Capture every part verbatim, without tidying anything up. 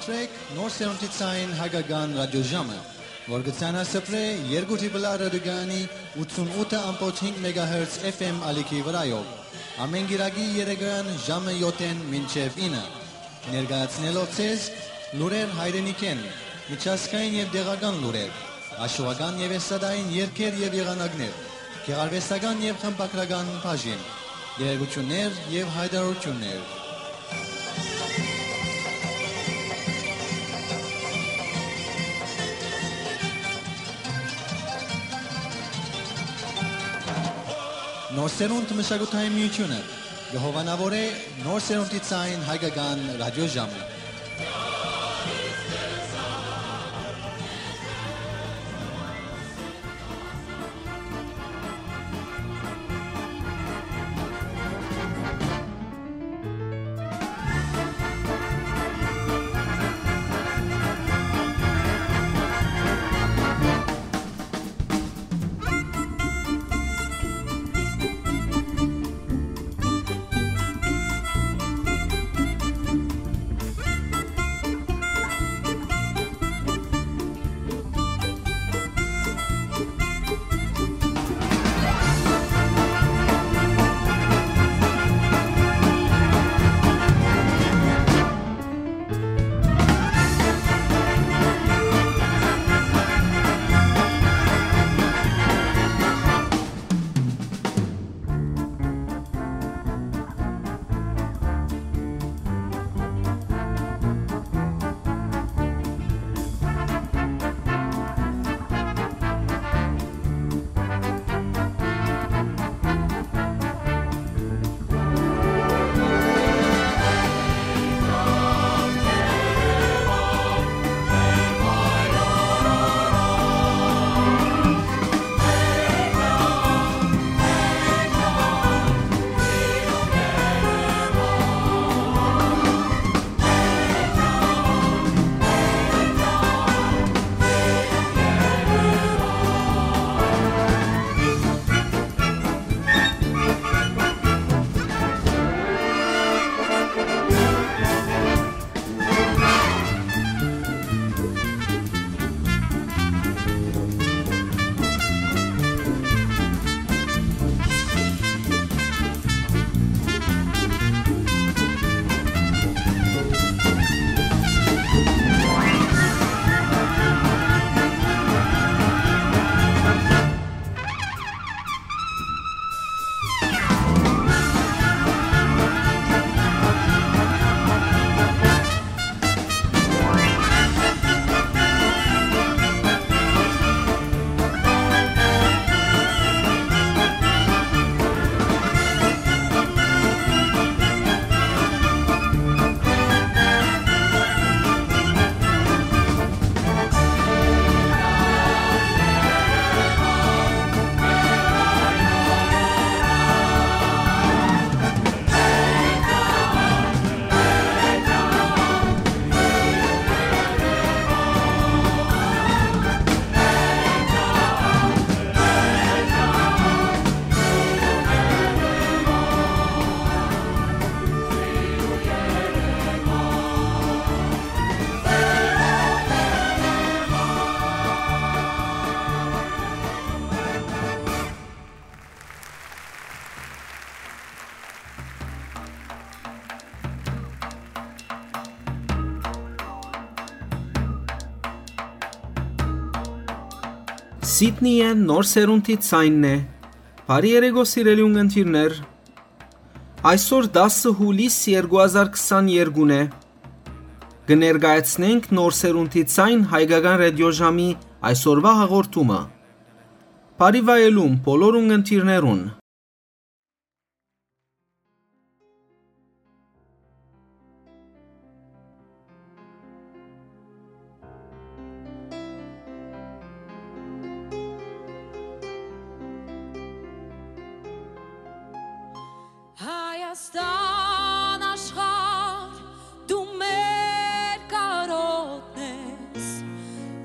Սրեք Նոր Սերունդի Ցայն Հայկական Ռադիոժամը, որ կը ցանասփռէ երկու Տրիպլ Ա ռադիոկայանի ութսունութ ըմբոց հինգ մեգահերց F M ալիքի վրայով, ամէն կիրակի երեկոյան ժամը յոթ մինչեւ ինը, ներկայացնելով ձեզ լուրեր հայրենիքէն, միջազգային եւ տեղական լուրեր, աշուական եւ էստրադային երգեր եւ եղանակներ, գեղարուեստական եւ խմբագրական բաժին, տեղեկութիւններ եւ յայտարարութիւններ։ Նոր Սերունդ մշակութային միութիւնը կը հովանաւորէ Նոր Սերունդի Ցայն Հայկական Ռադիոժամը։ Սիդնիը Նոր Սերունդի Ցայնն է։ Բարի երեկո, սիրելի ունգընտիրներ։ Այսօր դասը յուլիս երկու հազար քսաներկուն է։ Կը ներկայացնենք Նոր Սերունդի Ցայն Հայկական Ռադիոժամի այսօրվա հաղորդումը։ Բարի վայելում բոլոր ունգընտիրներուն։ Հայաստան աշխարհ, դու մեր կարօտն ես,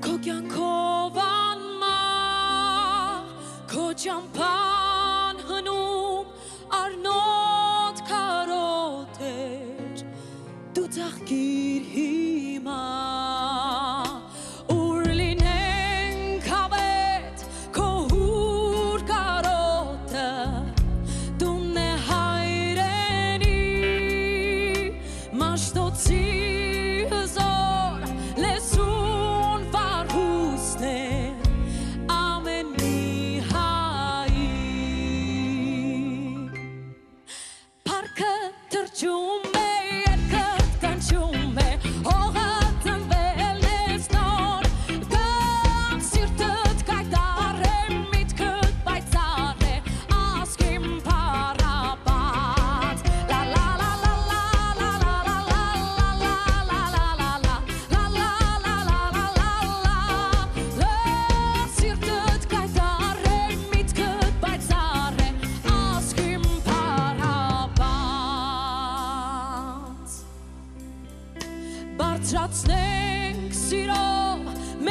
քո կեանքով անմահ, քո ճամբան հնում, առնոտ կարօտ էր, դու ծաղկիր հիմա։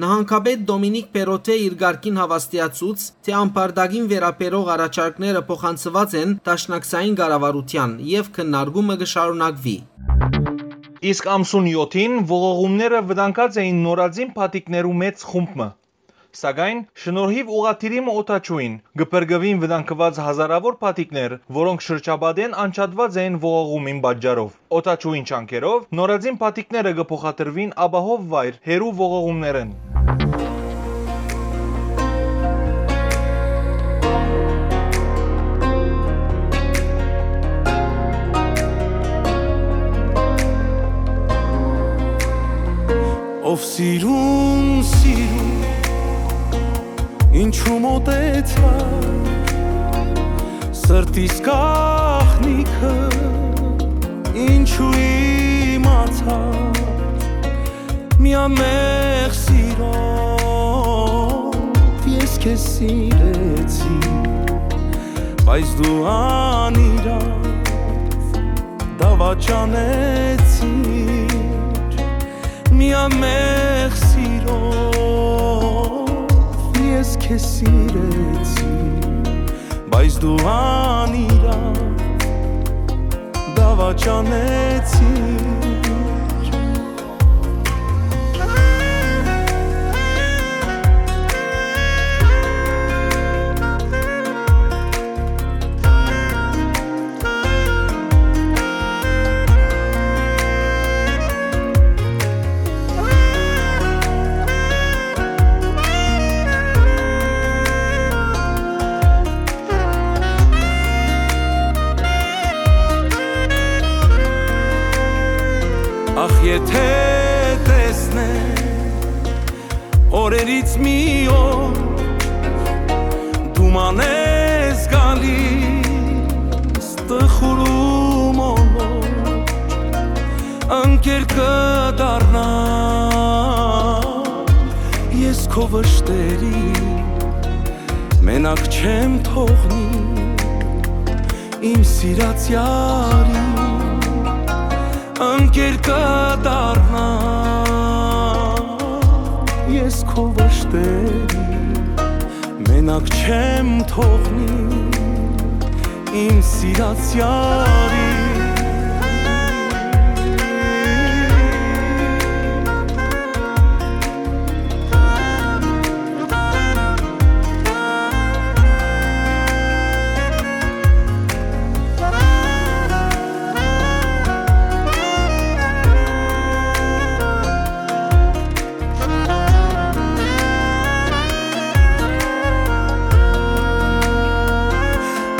Նահանգապետ Դոմինիք Պերոթէ իր կարգին հաւաստիացուց, թէ ամբարտակին վերաբերող առաջարկները փոխանցուած են դաշնակցային կառավարութեան եւ քննարկումը կը շարունակուի։ Իսկ ամսուն եօթին ողողումները վտանգած էին նորածին փաթիթներու մեծ խումբ մը։ Սակայն, շնորհիւ ուղղաթիռի մը օդաչուին, կը փրկուին վտանգուած հազարաւոր փաթիթներ, որոնք շրջապատէն անջատուած էին ողողումին պատճառով։ Օդաչուին ջանքերով նորածին փաթիթները կը փոխադրուին ապահով վայր հեռու ողողումներէն։ Ով սիրուն, սիրուն, ինչու մոտեցա, սրտիս գաղտնիքը ինչու իմացա, միամեղ սիրով ես քեզ սիրեցի, բայց դու անիրաւ դավաճանեցիր, միամեղ սիրով ես քեզ սիրեցի, բայց դու անիրաւ դավաճանեցիր։ Ախ, եթէ տեսնեմ օրերից մի օր, դու մանես գալիս տխուր ու մոլոր, ընկեր կը դառնամ ես քո վշտերին, մենակ չեմ թողնի իմ սիրած յարին, ընկեր կը դառնամ ես քո վշտերին, մենակ չեմ թողնի իմ սիրած յարին։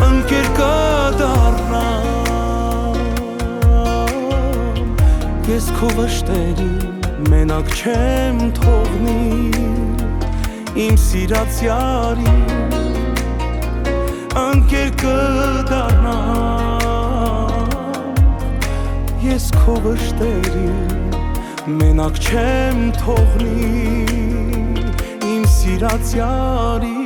Ընկեր կը դառնամ ես քո վշտերին, մենակ չեմ թողնի իմ սիրած յարին, ընկեր կը դառնամ ես քո վշտերին, մենակ չեմ թողնի իմ սիրած յարին։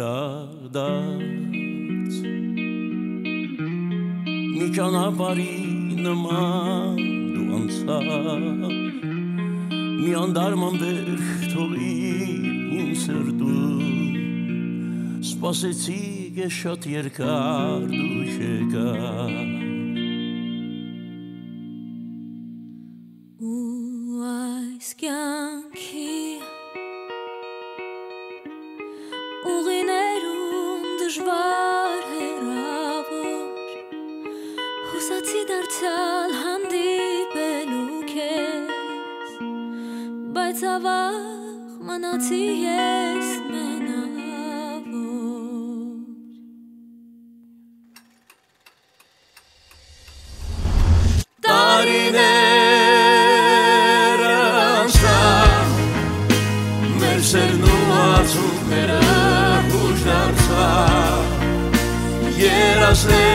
Անվերադարձ մի ճանապարհի նման դու անցար, մի անտարման վերք թողիր իմ սրտում, Սպասեցի ես շատ երկար, դու չեկար։ Ու այս կյանքի ուղիներուն դժվար հեռաւոր, հուսացի դարձյալ հանդիպելու քեզ, բայց ավաղ մնացի ես մենաւոր։ Տարիներ անցան, մեր սերն ու արցունքները յուշ դարձան, երազները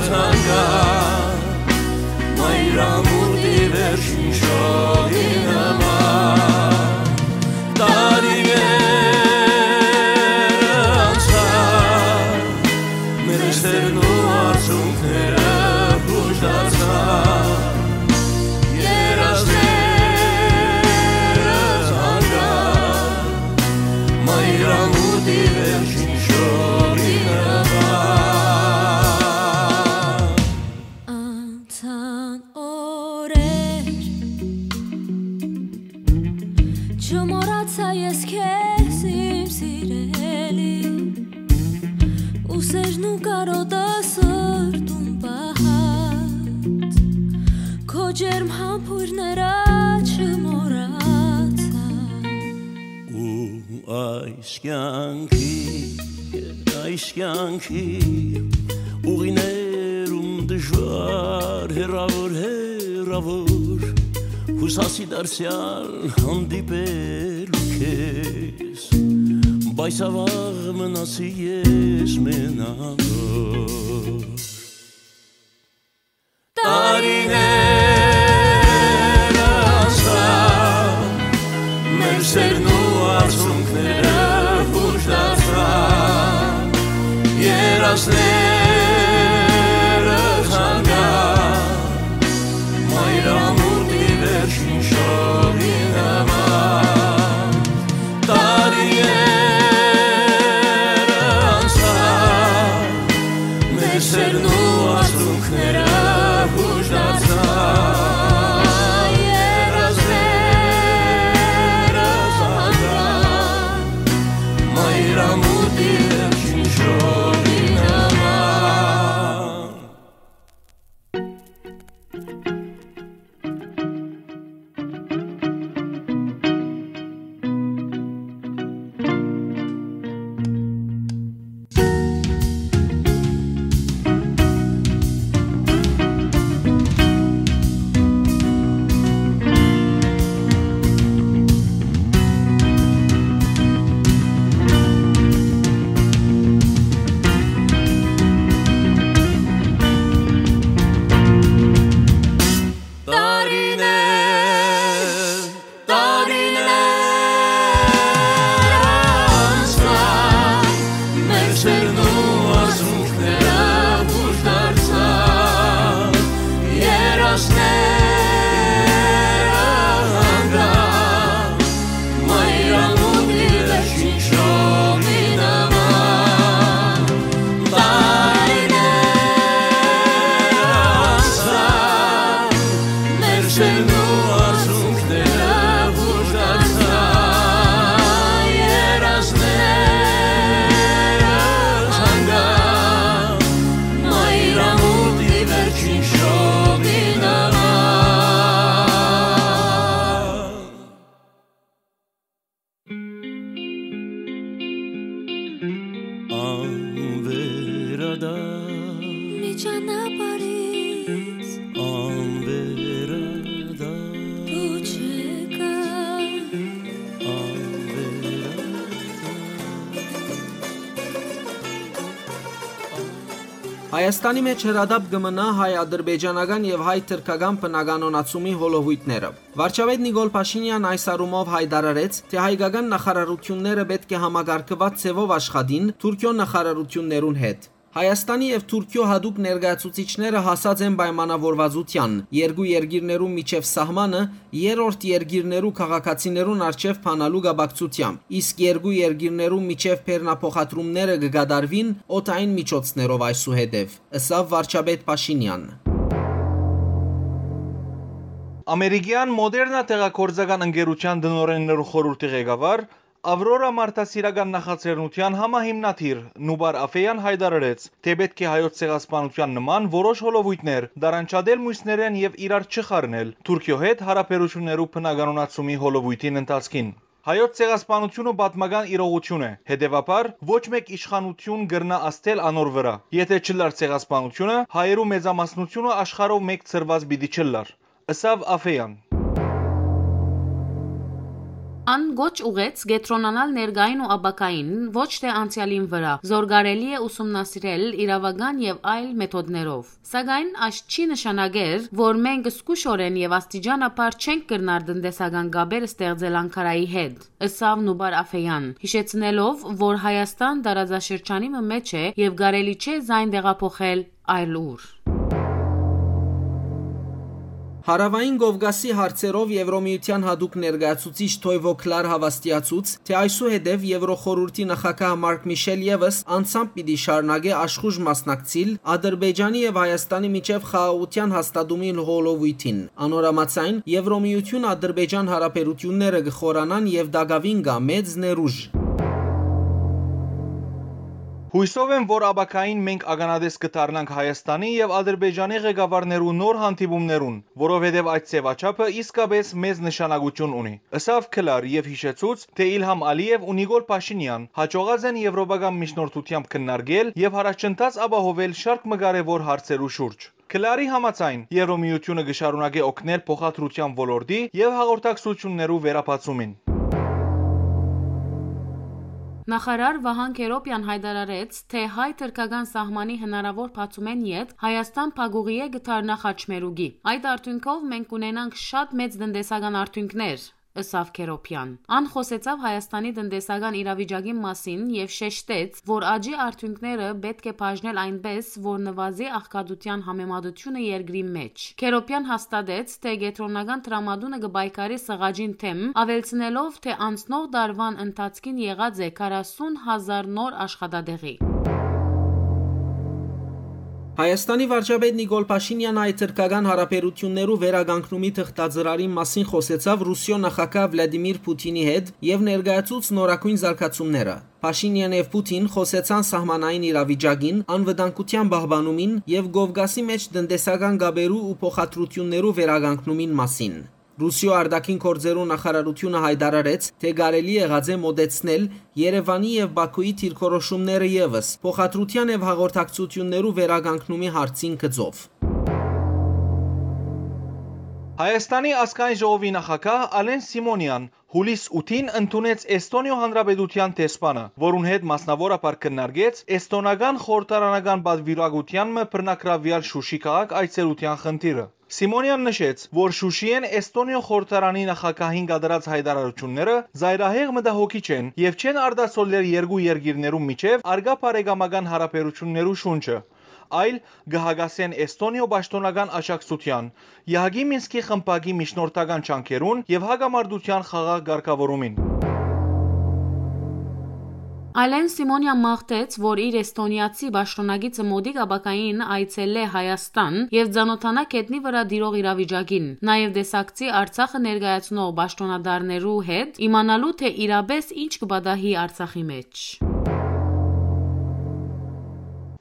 թանկան, մայրամուտի վերջին շողի նման։ Տարիներ անցան, մեր սերն ու արցունքները յուշ դարձան, երազները թանկան, մայրամուտի վերջին շողի նման։ Անցան օրեր, չմոռացայ ես քեզ, իմ սիրելի, ու սերն ու կարոտը սրտում պահած, քո ջերմ համբույրները չմոռացայ։ Ու այս կյանքի, այս կյանքի ուղիներուն դժվար, հեռաւոր, հեռաւոր, հուսացի դարձեալ հանդիպելու քեզ, բայց ավաղ մնացի ես մենավոր։ Տարիներ անցան, մեր սերն ու արցունքները յուշ դարձան, երազները թանկան, մայրամուտի վերջին շողի նման։ Տարիներ անցան, մեր սերն ու արցունքները յուշ դարձան, երազները թանկան, մայրամուտի վերջին շողի նման։ Տարիներ, տարիներ անցան, մեր սերն ու արցունքները յուշ դարձան, երազները թանկան, մայրամուտի վերջին շողի նման։ Տարիներ անցան, մեր սերն ու արցունքները յուշ դարձան, երազները թանկան, մայրամուտի վերջին շողի նման։ Անվերադառ։ Մի ճանապարհից անվերադառ։ Դու չեկար։ Անվերադառ։ Հայաստանի մէջ հրատապ կը մնայ հայ-ադրբեջանական եւ հայ-թրքական բնականոնացումի հոլովոյթները։ Վարչապետ Նիկոլ Փաշինեան այս առումով յայտարարեց, թէ հայկական նախարարութիւնները պէտք է համակարգուած ձեւով աշխատին Թուրքիոյ նախարարութիւններուն հետ։ Հայաստանի եւ Թուրքիոյ յատուկ ներկայացուցիչները հասած են պայմանաւորուածութեան՝ երկու երկիրներու միջեւ սահմանը երրորդ երկիրներու քաղաքացիներուն առջեւ բանալու կապակցութեամբ, իսկ երկու երկիրներու միջեւ բեռնափոխադրումները կը կատարուին օդային միջոցներով այսուհետեւ, ըսաւ վարչապետ Փաշինեան։ Ամերիկեան Մոդերնա դեղագործական ընկերութեան տնօրէններու խորհուրդի ղեկավար, Ավրորա մարդասիրական նախաձեռնութեան համահիմնադիր Նուբար Աֆեան յայտարարեց, թէ պէտք է Հայոց ցեղասպանութեան նման որոշ հոլովոյթներ տարանջատել միւսներէն եւ իրար չխառնել Թուրքիոյ հետ յարաբերութիւններու բնականոնացումի հոլովոյթին ընթացքին։ Հայոց ցեղասպանութիւնը պատմական իրողութիւն է, հետեւաբար ոչ մէկ իշխանութիւն կրնայ ազդել անոր վրայ։ Եթէ չըլլար ցեղասպանութիւնը, հայերու մեծամասնութիւնը աշխարհով մէկ ցրուած պիտի չըլլար, ըսաւ Աֆեան։ Ան կոչ ուղղեց կեդրոնանալ ներկային ու ապագային, ոչ թէ անցեալին վրայ, զոր կարելի է ուսումնասիրել իրաւական եւ այլ մեթոդներով։ Սակայն այս չի նշանակեր, որ մենք զգուշօրէն եւ աստիճանաբար չենք կրնար տնտեսական կապեր ստեղծել Անգարայի հետ, ըսաւ Նուբար Աֆեան, յիշեցնելով, որ Հայաստան տարածաշրջանի մը մէջ է եւ կարելի չէ զայն տեղափոխել այլ ուր։ Հարաւային Կովկասի հարցերով Եվրոմիութեան յատուկ ներկայացուցիչ Թոյվո Քլար հաւաստիացուց, թէ այսուհետեւ Եվրոխորհուրդի նախագահ Մարկ Միշել եւս անձամբ պիտի շարունակէ աշխուժ մասնակցիլ Ադրբեջանի եւ Հայաստանի միջեւ խաղաղութեան հաստատումի հոլովոյթին։ Անոր համաձայն, Եվրոմիութիւն-Ադրբեջան հարաբերութիւնները կը խորանան եւ տակաւին կայ մեծ ներուժ։ Յուսով եմ, որ ապագային մենք ականատես կը դառնանք Հայաստանի եւ Ադրբեջանի ղեկավարներու նոր հանդիպումներուն, որովհետեւ այդ ձեւաչափը իսկապէս մեծ նշանակութիւն ունի, ըսաւ Քլար եւ յիշեցուց, թէ Իլհամ Ալիեւ ու Նիկոլ Փաշինեան յաջողած են եվրոպական միջնորդությամբ քննարկել եւ առաջընթաց ապահովել շարք մը կարեւոր հարցերու շուրջ։ Քլարի համաձայն, Եվրոմիութիւնը կը շարունակէ օգնել փոխադրութեան ոլորտի եւ հաղորդակցութիւններու վերաբացումին։ Նախարար Վահան Քերոպեան յայտարարեց, թէ հայ-թրքական սահմանի հնարաւոր բացումէն ետք Հայաստան փակուղիէ կը դառնայ խաչմերուկի։ Այդ արդիւնքով մենք կունենանք շատ մեծ տնտեսական արդիւնքներ, ըսաւ Քերոպեան։ Ան խօսեցաւ Հայաստանի տնտեսական իրավիճակին մասին եւ շեշտեց, որ աճի արդիւնքները պէտք է բաժնել այնպէս, որ նուազի աղքատութեան համեմատութիւնը երկրի մէջ։ Քերոպեան հաստատեց, թէ կեդրոնական դրամատունը կը պայքարի սղաճին դէմ, աւելցնելով, թէ անցնող տարուան ընթացքին եղած է քառասուն հազար նոր աշխատատեղի։ Հայաստանի վարչապետ Նիկոլ Փաշինեան հայ-թրքական հարաբերութիւններու վերականգնումի թղթածրարին մասին խօսեցաւ Ռուսիոյ նախագահ Վլադիմիր Փութինի հետ եւ ներկայացուց նորագոյն զարգացումները։ Փաշինեան եւ Փութին խօսեցան սահմանային իրավիճակին, անվտանգութեան պահպանումին եւ Կովկասի մէջ տնտեսական կապերու ու փոխադրութիւններու վերականգնումին մասին։ Ռուսիոյ արտաքին գործերու նախարարութիւնը յայտարարեց, թէ կարելի եղած է մօտեցնել Երեւանի եւ Բաքուի դիրքորոշումները եւս փոխադրութեան եւ հաղորդակցութիւններու վերականգնումի հարցին գծով։ Հայաստանի ազգային ժողովի նախագահ Ալեն Սիմոնեան յուլիս ութին ընդունեց Էստոնիոյ Հանրապետութեան դեսպանը, որուն հետ մասնաւորաբար քննարկեց էստոնական խորհրդարանական պատվիրակութեան մը բռնագրաւեալ Շուշի քաղաք այցելութեան խնդիրը։ Սիմոնեան նշեց, որ Շուշիէն Էստոնիոյ խորհրդարանի նախագահին կատարած յայտարարութիւնները զայրահեղ մտահոգիչ են եւ չեն արտացոլեր երկու երկիրներու միջեւ առկայ բարեկամական հարաբերութիւններու շունչը, այլ կը հակասեն Էստոնիոյ պաշտօնական աջակցութեան, Եհակի Մինսկի խմբակի միջնորդական ջանքերուն եւ հակամարտութեան խաղաղ կարգաւորումին։ Ալեն Սիմոնեան մաղթեց, որ իր էստոնիացի պաշտօնակիցը մօտիկ ապագային այցելէ Հայաստան եւ ծանօթանայ գետնի վրայ տիրող իրավիճակին, նաեւ տեսակցի Արցախը ներկայացնող պաշտօնատարներու հետ, իմանալու թէ իրապէս ինչ կը պատահի Արցախի մէջ։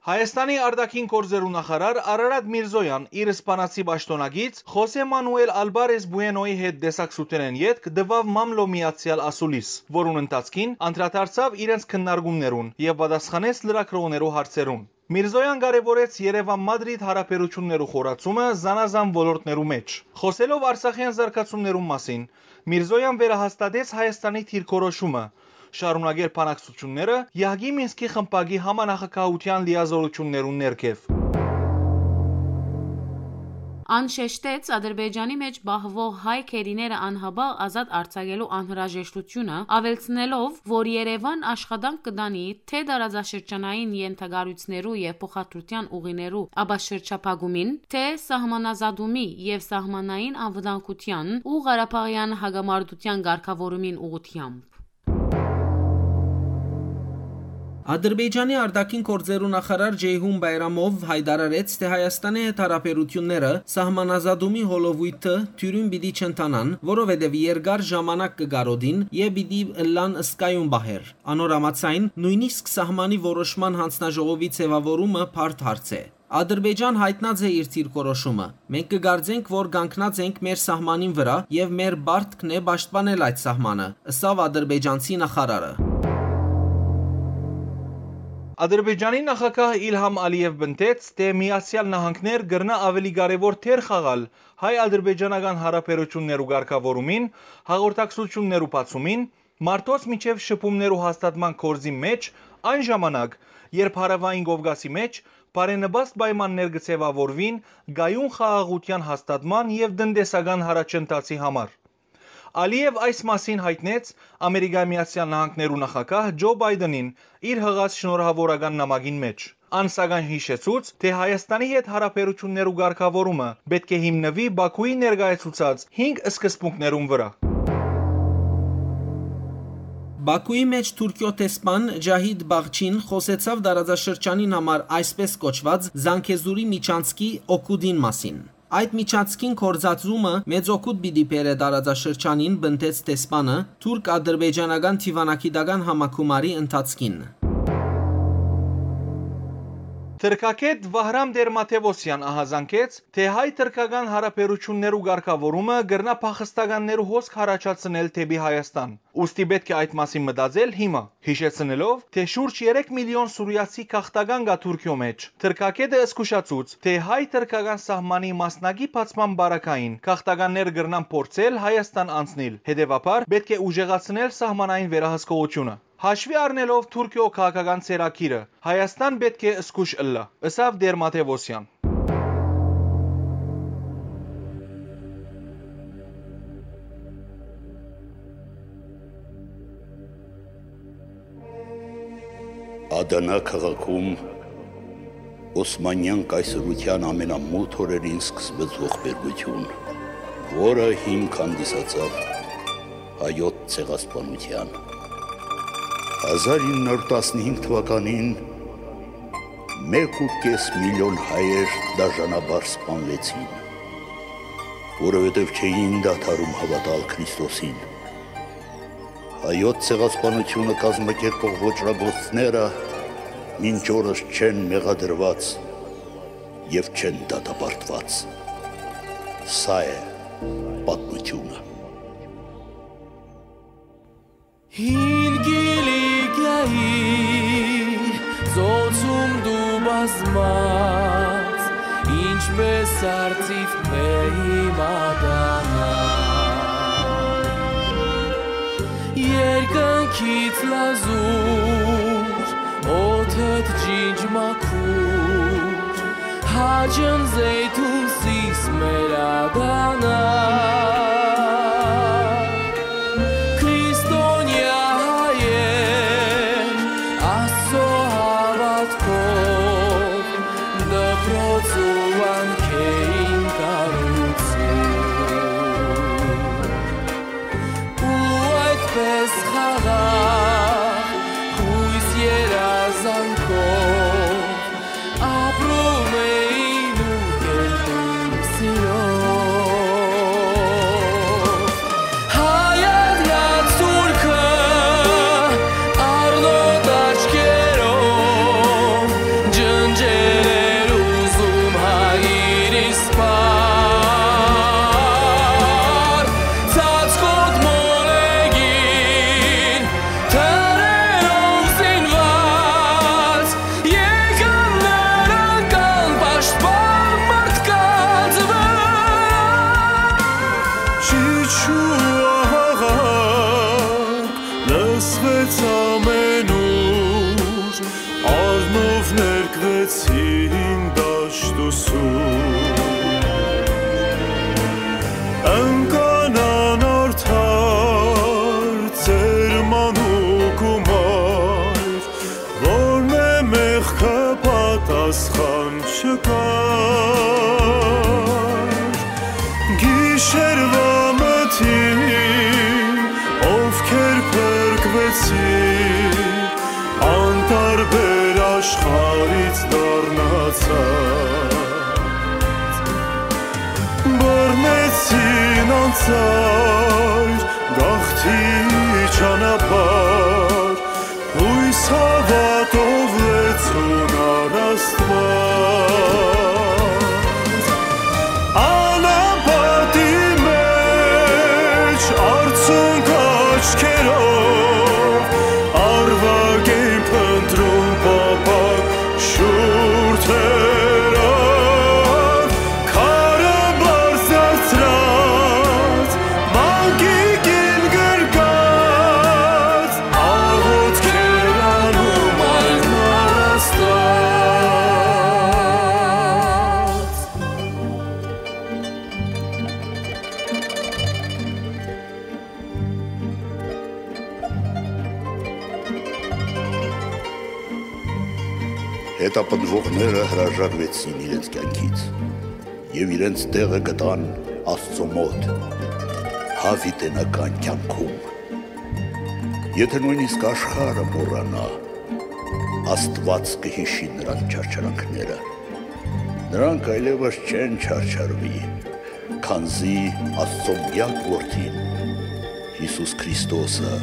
Հայաստանի արտաքին գործերու նախարար Արարատ Միրզոյան իր սպանացի պաշտօնակից Խոսե Մանուել Ալբարես Բուենոյի հետ տեսակցութենէն ետք տուաւ մամլոյ միացեալ ասուլիս, որուն ընթացքին անդրադարձաւ իրենց քննարկումներուն եւ պատասխանեց լրագրողներու հարցերուն։ Միրզոյան կարեւորեց Երեւան-Մադրիդ հարաբերութիւններու խորացումը զանազան ոլորտներու մէջ։ Խօսելով արցախեան զարգացումներուն մասին, Միրզոյան վերահաստատեց Հայաստանի դիրքորոշումը շարունակել բանակցութիւնները Եհակի Մինսկի խմբակի համանախագահութեան լիազորութիւններուն ներքեւ։ Ան շեշտեց Ադրբեջանի մէջ պահուող հայ գերիները անհապաղ ազատ արձակելու անհրաժեշտությունը, աւելցնելով, որ Երեւան աշխատանք կը տանի թէ տարածաշրջանային ենթակառոյցներու եւ փոխադրութեան ուղիներու ապաշրջափակումին, թէ սահմանազատումի եւ սահմանային անվտանգութեան ու Ղարաբաղեան հակամարտութեան կարգաւորումին ուղղութեամբ։ Ադրբեջանի արտաքին գործերու նախարար Ջեյհուն Բայրամով յայտարարեց, թէ Հայաստանի հետ հարաբերութիւնները սահմանազատումի հոլովոյթը թիւրին պիտի չընթանան, որովհետեւ երկար ժամանակ կը կարօտին եւ պիտի ըլլան զգայուն պահեր։ Անոր համաձայն, նոյնիսկ սահմանի որոշման յանձնաժողովի ձեւաւորումը բարդ հարց է։ Ադրբեջան յայտնած է իր դիրքորոշումը։ Մենք կը կարծենք, որ կանգնած ենք մեր սահմանին վրայ եւ մեր պարտքն է պաշտպանել այդ սահմանը, ըսաւ ադրբեջանցի նախարարը։ Ադրբեջանի նախագահ Իլհամ Ալիեւ պնդեց, թէ Միացեալ Նահանգներ կրնայ աւելի կարեւոր դեր խաղալ հայ-ադրբեջանական հարաբերութիւններու կարգաւորումին, հաղորդակցութիւններու բացումին, մարդոց միջեւ շփումներու հաստատման գործին մէջ, այն ժամանակ, երբ Հարաւային Կովկասի մէջ բարենպաստ պայմաններ կը ձեւաւորուին կայուն խաղաղութեան հաստատման եւ տնտեսական յառաջընթացի համար։ Ալիեւ այս մասին յայտնեց Ամերիկայի Միացեալ Նահանգներու նախագահ Ջո Բայդենին իր յղած շնորհաւորական նամակին մէջ։ Ան, սակայն, յիշեցուց, թէ Հայաստանի հետ հարաբերութիւններու կարգաւորումը պէտք է հիմնուի Բաքուի ներկայացուցած հինգ սկզբունքներուն վրայ։ Բաքուի մէջ Թուրքիոյ դեսպան Ջահիդ Բաղչին խօսեցաւ տարածաշրջանին համար այսպես կոչուած Զանգեզուրի միջանցքի օգուտին մասին։ Այդ միջանցքին գործածումը մեծ օգուտ պիտի բերէ տարածաշրջանին, պնդեց դեսպանը թուրք-ադրբեջանական դիվանագիտական համագումարի ընթացքին։ Թրքագէտ Վահրամ Տեր-Մաթեւոսեան ահազանգեց, թէ հայ-թրքական հարաբերութիւններու կարգաւորումը կրնայ փախստականներու հոսք յառաջացնել դէպի Հայաստան, ուստի պէտք է այդ մասին մտածել հիմա, յիշեցնելով, թէ շուրջ երեք միլիոն սուրիացի գաղթական կայ Թուրքիոյ մէջ։ Թրքագէտը զգուշացուց, թէ հայ-թրքական սահմանի մասնակի բացման պարագային գաղթականներ կրնան փորձել Հայաստան անցնիլ, հետեւաբար պէտք է ուժեղացնել սահմանային վերահսկողութիւնը։ Հաշուի առնելով Թուրքիոյ քաղաքական ծերագիրը, Հայաստան պէտք է զգուշ ըլլայ, ըսաւ Տեր-Մաթեւոսեան։ Ադանա քաղաքում Օսմանեան կայսրութեան ամենամութ օրերին սկսվեց ողբերգութիւն, որը հիմք հանդիսացաւ հայոց ցեղասպանութեան։ Հազար ինը հարյուր տասնհինգ թուականին մէկ ու կէս միլիոն հայեր դաժանաբար սպանուեցին, որովհետեւ չէին դադարում հաւատալ Քրիստոսին։ Հայոց ցեղասպանութիւնը կազմակերպող ոճրագործները մինչ օրս չեն մեղադրուած եւ չեն դատապարտուած։ Սա է պատմութիւնը։ Հին Կիլիկիայի ծոցում դու բազմած, ինչպես արծիվ մեղի մատանա։ Երկնքից լազուր, օդդ ջինջ մաքուր, հաճն զեյթուն սիս մեր ադանա։ Քրիստոնեայ հայեր, Աստծո հաւատքով, դպրոց ու վանքերին կառուցում, ու այդպես խաղաղ, յոյս երազանքով, ապրում էին ու կերտում սիրով։ Հայատյաց թուրքը առնոտ աչքերով ջնջել էր ուզում հայրիս պար, ծածկոտ մոլեգին թռերով զինված, եկան նրանք անպաշտպան մարդկանց վրա։ Չիչու աղաղակ լսվեց ամենուր, առնով ներկվեցին դաշտ ու սուր։ Գիշերուայ մթին, ովքեր փրկուեցին, անտարբեր աշխարհից դառնացած, բռնեցին անցայր գաղթի ճանապարհ, յոյս հաւատով լեցուն առ Աստուած։ Անապատի մէջ արցունք աչքերով, արուակ են փնտռում պապակ շուրթերով, քարը բարձրացրած, մանկիկին գրկած, աղօթքեր անում այն առաստած։ Հետապնդուողները հրաժարուեցին իրենց կեանքից եւ իրենց տեղը գտան Աստծո մօտ, յաւիտենական կեանքում։ Եթէ նոյնիսկ աշխարհը մոռանայ, Աստուած կը յիշի նրանց չարչարանքները։ Նրանք այլեւս չեն չարչարուի, քանզի Աստծո միակ Որդին, Յիսուս Քրիստոսը,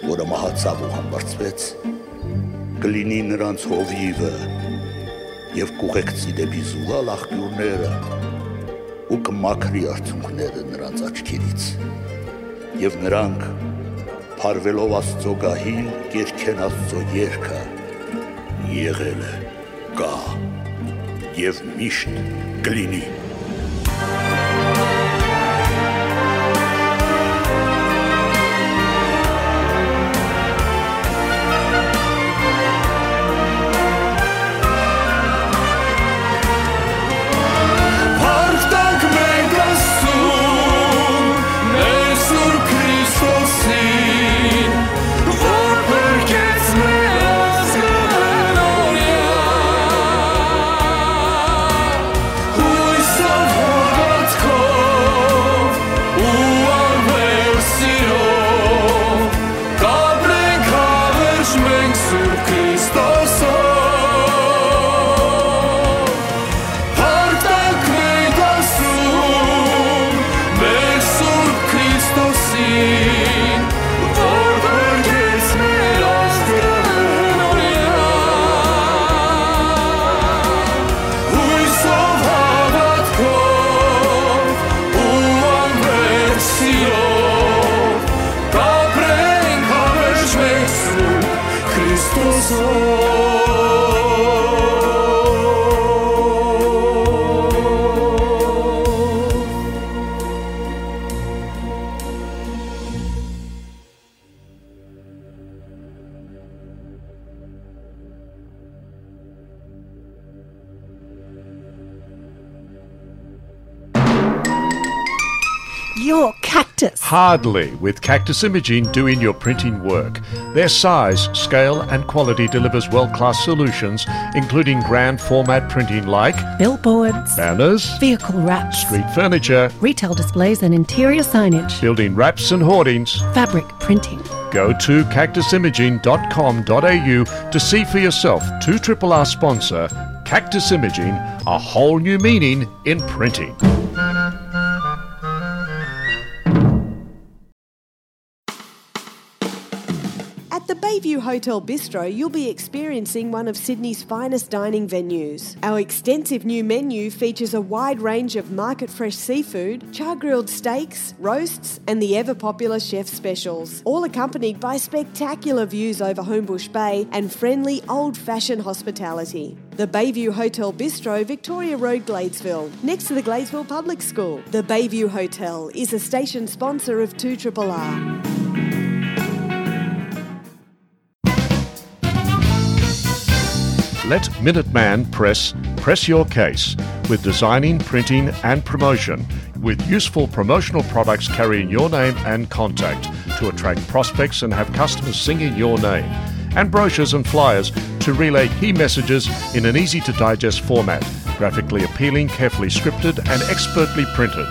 որը մահացաւ ու համբարձուեց, կը լինի նրանց հովիւը եւ կ'ուղեկցի դէպի զուլալ աղբիւրները ու կը մաքրի արցունքները նրանց աչքերից։ Եւ նրանք, փարուելով Աստծո գահին, կ'երգեն Աստծո երգը. «Եղել է, կայ եւ միշտ կը լինի»։ Փառք տանք մենք Աստծուն, մեր Սուրբ Քրիստոսին, որ փրկեց մեր ազգը հոյսով, հաւատքով ու անվերջ սիրով, կ'ապրենք հավերժ մենք Սուրբ Քրիստոսով։ Փառք տանք մենք Աստծուն, մեր Սուրբ Քրիստոսին, որ փրկեց մեր ազգը հոյսով, հաւատքով ու անվերջ սիրով, կ'ապրենք հավերժ մենք Սուրբ Քրիստոսով։ Your Cactus. Hardly, with Cactus Imaging doing your printing work. Their size, scale, and quality delivers world-class solutions, including grand format printing like billboards, banners, vehicle wraps, street furniture, retail displays and interior signage, building wraps and hoardings, fabric printing. Go to cactus imaging dot com dot a u to see for yourself. Two triple R sponsor, Cactus Imaging, a whole new meaning in printing. At the Bayview Hotel Bistro, you'll be experiencing one of Sydney's finest dining venues. Our extensive new menu features a wide range of market fresh seafood, char grilled steaks, roasts, and the ever popular chef specials, all accompanied by spectacular views over Homebush Bay and friendly old fashioned hospitality. The Bayview Hotel Bistro, Victoria Road, Gladesville, next to the Gladesville Public School. The Bayview Hotel is a station sponsor of two triple R. Let Minuteman Press press your case with designing, printing, and promotion, with useful promotional products carrying your name and contact to attract prospects and have customers singing your name. and brochures and flyers to relay key messages in an easy-to-digest format, graphically appealing, carefully scripted, and expertly printed.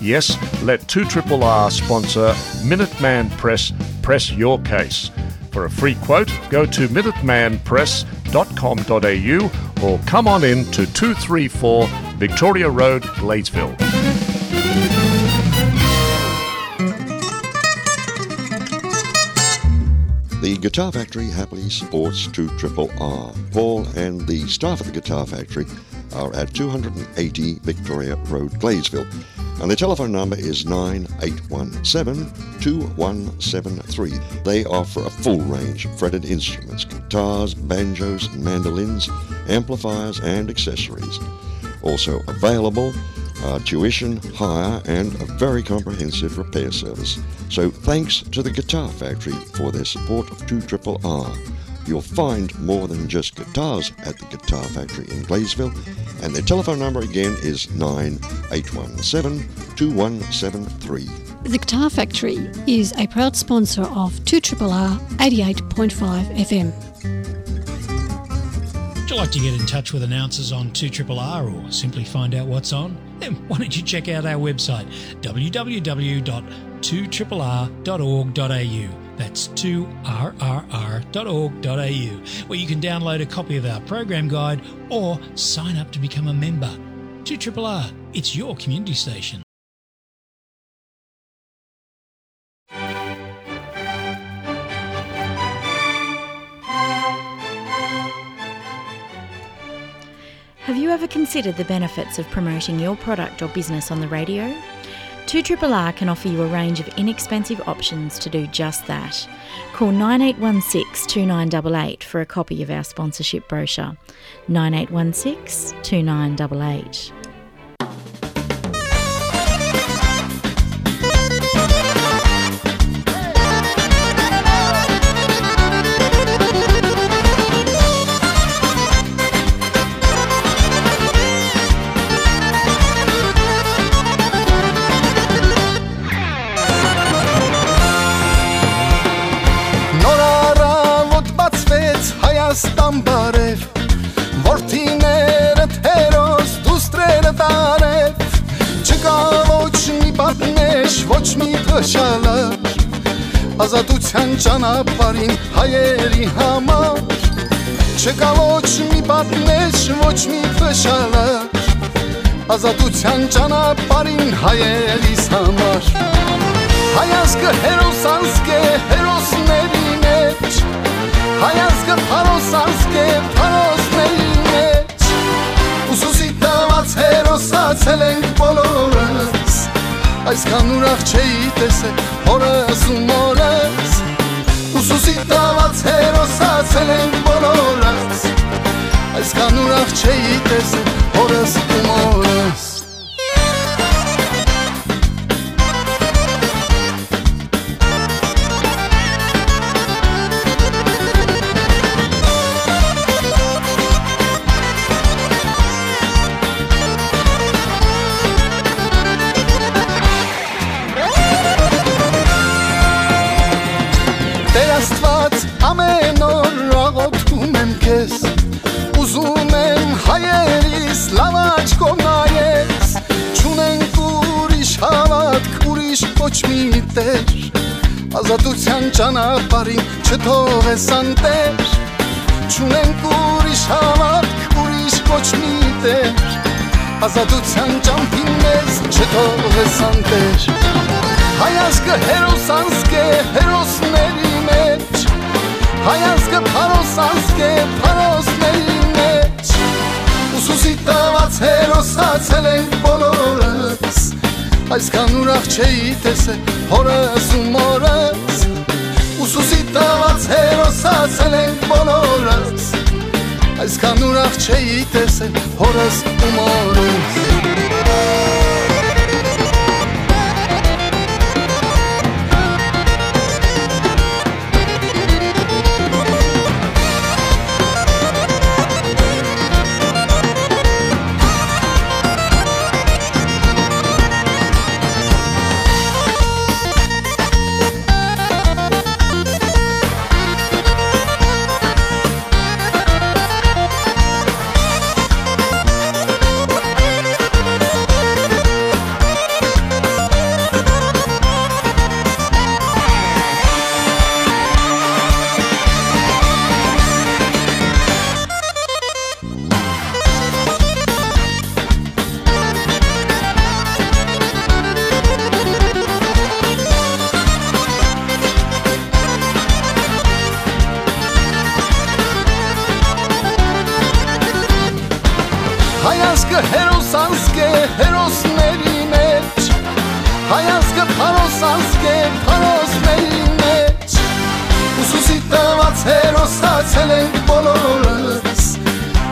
Yes, let two triple R sponsor Minuteman Press press your case. For a free quote, go to minuteman press dot com dot a u or come on in to two three four Victoria Road, Gladesville. The Guitar Factory happily supports two triple R. Paul and the staff at the Guitar Factory are at two hundred and eighty Victoria Road, Gladesville. And the telephone number is nine eight one seven, two one seven three. They offer a full range of fretted instruments, guitars, banjos, mandolins, amplifiers, and accessories. Also available, uh, tuition, hire, and a very comprehensive repair service. So thanks to the Guitar Factory for their support of two triple R. You'll find more than just guitars at the Guitar Factory in Gladesville, and their telephone number again is nine eight one seven, two one seven three. The Guitar Factory is a proud sponsor of two triple R eighty-eight point five F M. Would you like to get in touch with announcers on two triple R or simply find out what's on? Then why don't you check out our website, w w w dot two triple r dot org dot a u. That's two r r r dot org dot a u, where you can download a copy of our program guide or sign up to become a member. Two triple R, it's your community station. Have you ever considered the benefits of promoting your product or business on the radio? Two triple R can offer you a range of inexpensive options to do just that. Call nine eight one six two nine double eight for a copy of our sponsorship brochure. Nine eight one six two nine double eight. Նոր առավոտ բացվեց Հայաստան բարև, որդիներդ հերոս, դուստրերդ արև, չկա ոչ մի պատնեշ, ոչ մի փշալար, ազատության ճանապարհին հայերի համար, չկա ոչ մի պատնեշ, ոչ մի փշալար, ազատության ճանապարհին հայերիս համար։ Հայ ազգը հերոս ազգ է հերոսների մեջ, հայ ազգը փարոս ազգ է փարոսների մեջ։ Ուսուսի տված հերոսացել ենք բոլորս, այսքան ուրախ չէի տեսել հորս ու մորս։ Ուսուսի տված հերոսացել ենք բոլորս, այսքան ուրախ չէի տեսել հորս ու մորս։ Տեր Աստված, ամեն օր աղոթում եմ քեզ, ուզում եմ հայերիս լաւ աչքով նայես, չունենք ուրիշ հաւատք, ուրիշ ոչ մի տեր, ազատության ճանապարհին չթողես անտեր, չունենք ուրիշ հաւատք, ուրիշ ոչ մի տեր, ազատության ճամփին մեզ չթողես անտեր։ Հայ ազգը հերոս ազգ է հերոսների մեջ, հայ ազգը փարոս ազգ է փարոսների մեջ, ուսուսի տված հերոսացել ենք բոլորս, այսքան ուրախ չէի տեսել հորս ու մորս, ուսուսի տված հերոսացել ենք բոլորս, այսքան ուրախ չէի տեսել հորս ու մորս։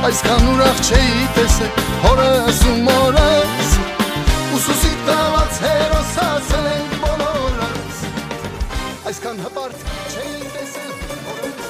Այսքան ուրախ չէի տեսել հորս ու մորս, ուսուսի տված հերոս ասենք բոլորս։ Այսքան հպարտ չէի տեսել հորս։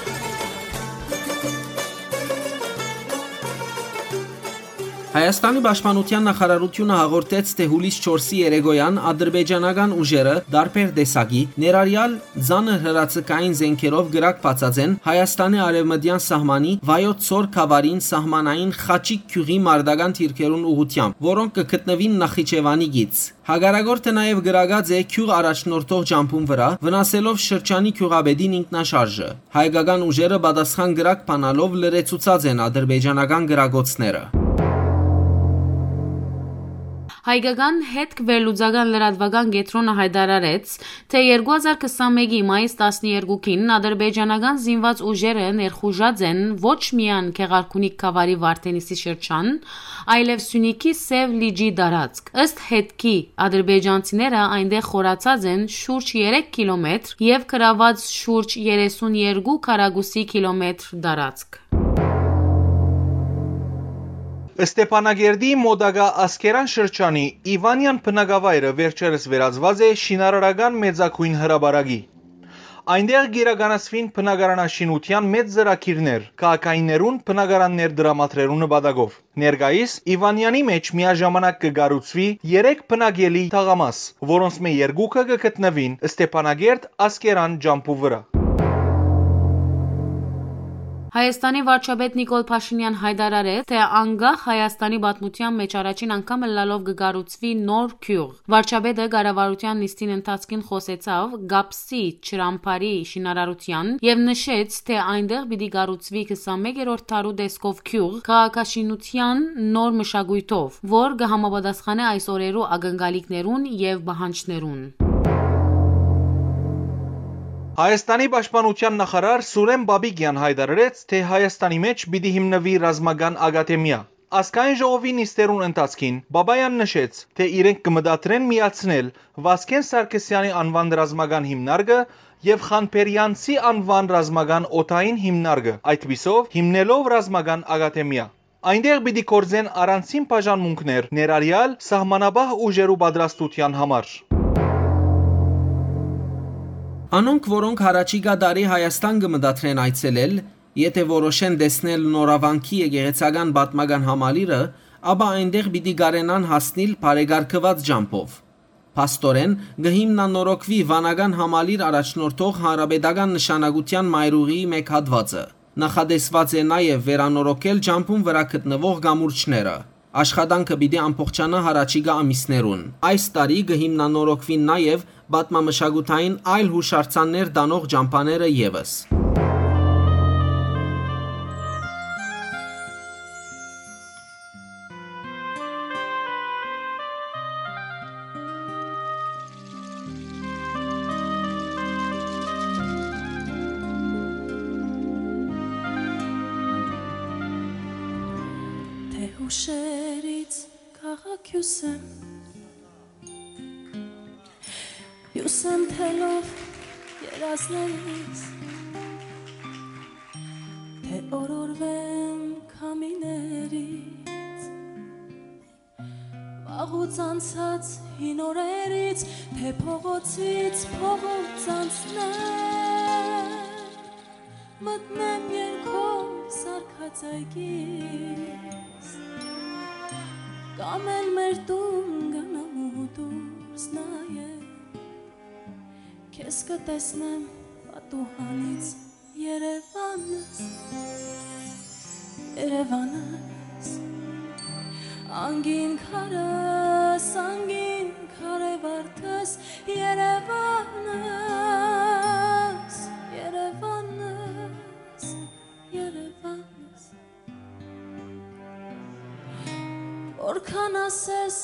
Հայաստանի պաշտպանութեան նախարարութիւնը հաղորդեց, թէ յուլիս չորսի երեկոյան ադրբեջանական ուժերը տարբեր տեսակի, ներառյալ ծանր հրաձգային զէնքերով կրակ բացած են Հայաստանի արեւմտեան սահմանի Վայոց Ձոր գաւառին սահմանային Խաչիկ գիւղի մարտական դիրքերուն ուղղութեամբ, որոնք կը գտնուին Նախիջեւանի գիծ։ Հակառակորդը նաեւ կրակած է գիւղ առաջնորդող ճամբուն վրայ, վնասելով շրջանի գիւղապետին ինքնաշարժը։ Հայկական ուժերը պատասխան կրակ բանալով լրացուցած են ադրբեջանական կրակոցները։ Հայկական հետք վերլուծական լրատվական կեդրոնը յայտարարեց, թէ երկու հազար քսանմէկի մայիս տասներկուին ադրբեջանական զինված ուժերը ներխուժած են ոչ միայն Գեղարքունիք գաւառի Վարդենիսի շրջան, այլեւ Սիւնիքի Սեւ լիճի տարածք։ Ըստ հետքի, ադրբեջանցիները այնտեղ խորացած են շուրջ երեք կիլոմետր եւ գրաւած շուրջ երեսուն երկու քառակուսի կիլոմետր տարածք։ Ստեփանակերտի մօտակայ Ասկերան շրջանի Իվանեան բնակավայրը վերջերս վերածուած է շինարարական մեծագոյն հրապարակի։ Այնտեղ կիրականացուին բնակարանաշինութեան մեծ ծրագիրներ, քաղաքայիններուն բնակարաններ տրամադրելու նպատակով։ Ներկայիս Իվանեանի մէջ միաժամանակ կը կառուցուի երեք բնակելի թաղամաս, որոնցմէ երկուքը կը գտնուին Ստեփանակերտ Ասկերան ճամբու վրայ։ Հայաստանի վարչապետ Նիկոլ Փաշինեան յայտարարեց, թէ անկախ Հայաստանի պատմութեան մէջ առաջին անգամ ըլլալով կը կառուցուի նոր գիւղ։ Վարչապետը կառավարութեան նիստին ընթացքին խօսեցաւ Կապսի ջրամբարի շինարարութեան եւ նշեց, թէ այնտեղ պիտի կառուցուի քսանմեկերորդ դարու տեսքով գիւղ, քաղաքաշինութեան նոր մշակոյթով, որ կը համապատասխանէ այս օրերու ակնկալիքներուն եւ պահանջներուն։ Հայաստանի պաշտպանութեան նախարար Սուրեն Պապիկեան յայտարարեց, թէ Հայաստանի մէջ պիտի հիմնուի ռազմական ակադեմիա։ Ազգային ժողովի նիստերուն ընթացքին Պապաեան նշեց, թէ իրենք կը մտադրեն միացնել Վազգեն Սարգսեանի անուան ռազմական հիմնարկը եւ Խանբերեանցի անուան ռազմական օդային հիմնարկը, այդպիսով հիմնելով ռազմական ակադեմիա։ Այնտեղ պիտի գործեն առանձին բաժանմունքներ, ներառյալ սահմանապահ ուժերու պատրաստութեան համար։ Անոնք, որոնք յառաջիկայ տարի Հայաստան կը մտադրեն այցելել, եթէ որոշեն տեսնել Նորավանքի եկեղեցական պատմական համալիրը, ապա այնտեղ պիտի կարենան հասնիլ բարեկարգուած ճամբով։ Փաստորեն, կը հիմնանորոգուի վանական համալիր առաջնորդող հանրապետական նշանակութեան մայրուղիի մէկ հատուածը։ Նախատեսուած է նաեւ վերանորոգել ճամբուն վրայ գտնուող կամուրջները։ Աշխատանքը պիտի ամբողջանայ յառաջիկայ ամիսներուն։ Այս տարի կը հիմնանորոգուին նաեւ պատմամշակութային այլ յուշարձաններ տանող ճամբաները եւս։ Թե հուշերից քաղաք հյուսեմ, հյուսեմ թելով երազներիս, թե օրորվեմ քամիներից, վաղուց անցած հին օրերից, թե փողոցից փողոց անցնեմ, մտնեմ երկով սարկած այգիս, կամ էլ մեր տուն գնամ ու դուրս նայեմ, քեզ կտեսնեմ պատուհանից, Երևանս, Երևանս, անգին քարս, անգին քարե վարդս, Երևանս, Երևանս, Երևանս։ Որքան ասես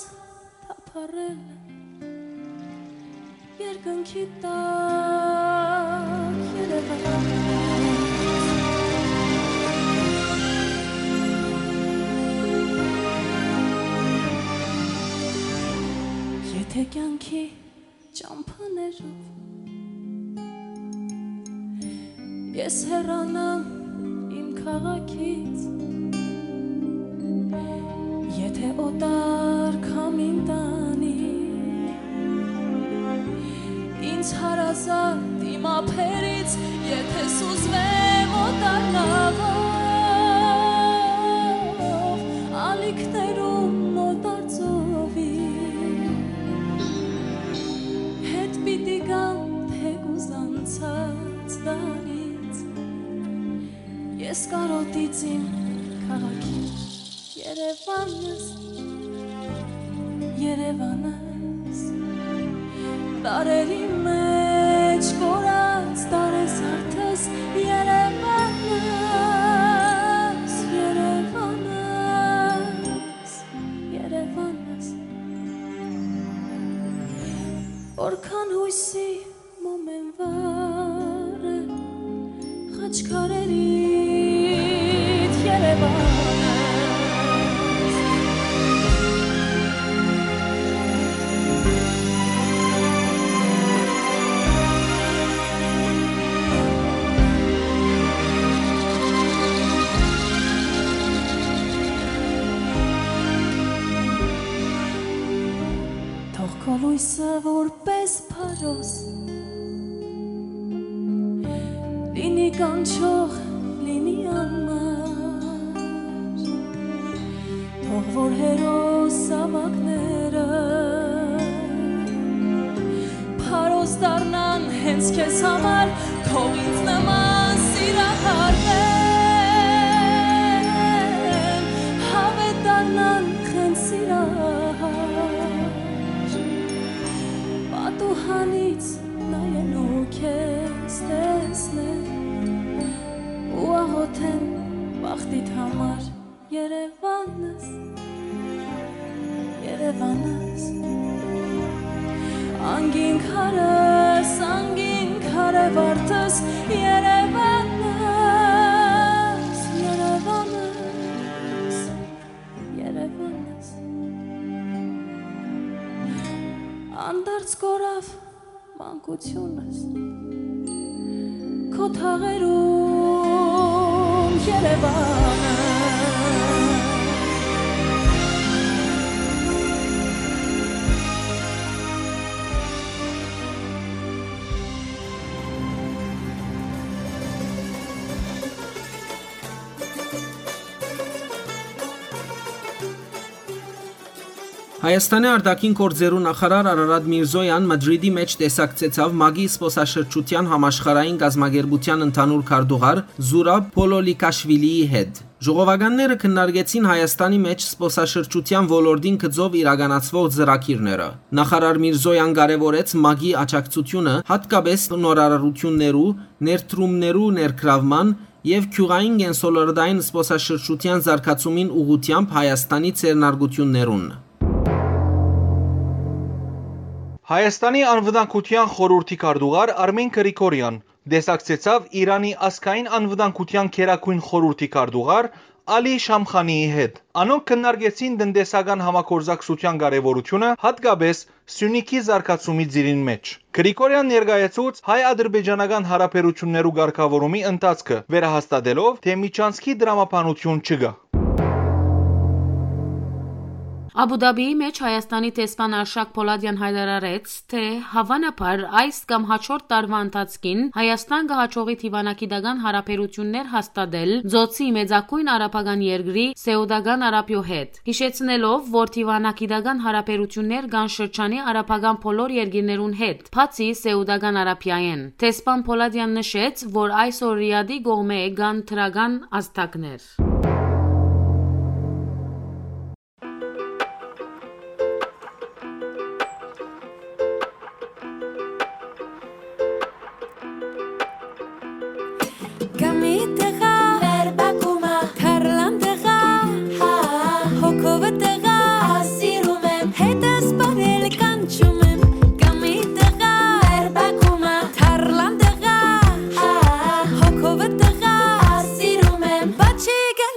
թափառել եմ երկնքի տակ, Երևան։ Եթե կյանքի ճամփաներով ես հեռանամ իմ քաղաքից, Թե օտար կամ ինտանի, ինձ հարազատ իմ ափերից, եթե սուզվեմ օտար նավով, ալիքներուն օտար ծովի, հետ պիտի գամ թեկուզ անցած դարից, ես կարոտից իմ քաղաքին։ Երևանս, Երևանս, տարերի մեջ կորած տարեզարդս, Երևանս, Երևանս, Երևանս, որքան յոյսի մոմ են վառը, խաչքարերիդ Երևանս։ Թող քո լոյսը որպես փարոս լինի կանչող, լինի անմար, թող որ հերոս ավագները փարոս դառնան հենց քեզ համար, թող ինձ նման սիրահարվեն, հավետ դառնան հենց սիրահար, պատուհանից նայեն ու քեզ տեսնեն ու աղոթեն բախտիդ համար։ Երևանս, Երևանս, անգին քարս, անգին քարե վարդս, Երևանս, Երևանս, Երևանս, անդարձ կորավ մանկությունս, քո թաղերուն Երևանը։ Հայաստանի արտաքին գործերու նախարար Արարատ Միրզոյան Մադրիդի մէջ տեսակցեցաւ մագի զբօսաշրջութեան համաշխարհային կազմակերպութեան ընդհանուր քարտուղար Զուրաբ Փոլոլիքաշվիլիի հետ։ Ժողովականները քննարկեցին Հայաստանի մէջ զբօսաշրջութեան ոլորտին գծով իրականացուող ծրագիրները։ Նախարար Միրզոյան կարեւորեց մագի աջակցութիւնը, յատկապէս նորարարութիւններու, ներդրումներու ներգրաւման, եւ գիւղային կենսոլորտային զբօսաշրջութեան զարգացումին ուղղութեամբ Հայաստանի ձեռնարկութիւններուն։ Հայաստանի անվտանգութեան խորհուրդի քարտուղար Արմին Գրիգորեան տեսակցեցաւ Իրանի ազգային անվտանգութեան գերագոյն խորհուրդի քարտուղար Ալի Շամխանիի հետ։ Անոնք քննարկեցին տնտեսական համագործակցութեան կարեւորութիւնը, յատկապէս Սիւնիքի զարգացումի ծիրին մէջ։ Գրիգորեան ներկայացուց հայ-ադրբեջանական յարաբերութիւններու կարգաւորումի ընթացքը, վերահաստատելով, թէ միջանցքի տրամաբանութիւն չկայ։ Աբու Դաբիի մէջ Հայաստանի դեսպան Արշակ Փոլադեան յայտարարեց, թէ հաւանաբար այս կամ հաջորդ տարուան ընթացքին Հայաստան կը յաջողի դիվանագիտական յարաբերութիւններ հաստատել Ծոցի մեծագոյն արաբական երկրի՝ Սէուտական Արաբիոյ հետ, յիշեցնելով, որ դիվանագիտական յարաբերութիւններ կան շրջանի արաբական բոլոր երկիրներուն հետ, բացի Սէուտական Արաբիայէն։ Դեսպան Փոլադեան նշեց, որ այսօր Ռիադի կողմէ կան դրական ազդակներ։ Կամի տղա, մեր բակումը, թարլան տղա, հա, հոգովը տղա, սիրում եմ, հետս պարել կանչում եմ։ Կամի տղա, մեր բակումը, թարլան տղա, հա, հոգովը տղա, սիրում եմ, բաչիկը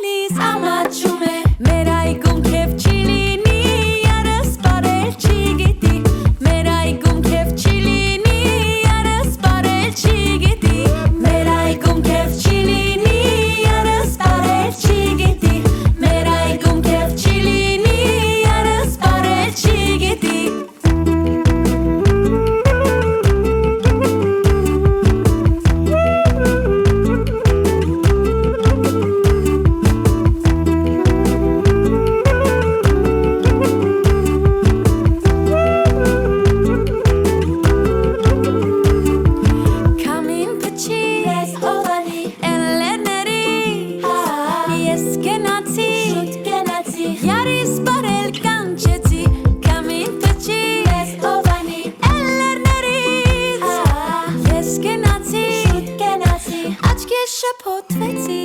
Կենացի, շուտ կենացի, աչքիս շփոթվեցի։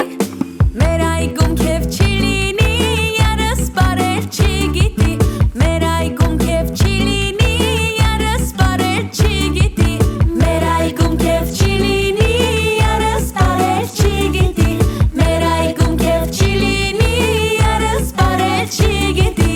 Մեր այգում քեֆ չի լինի, երս պարել չի գիտի։ Մեր այգում քեֆ չի լինի, երս պարել չի գիտի։ Մեր այգում քեֆ չի լինի, երս պարել չի գիտի։ Մեր այգում քեֆ չի լինի, երս պարել չի գիտի։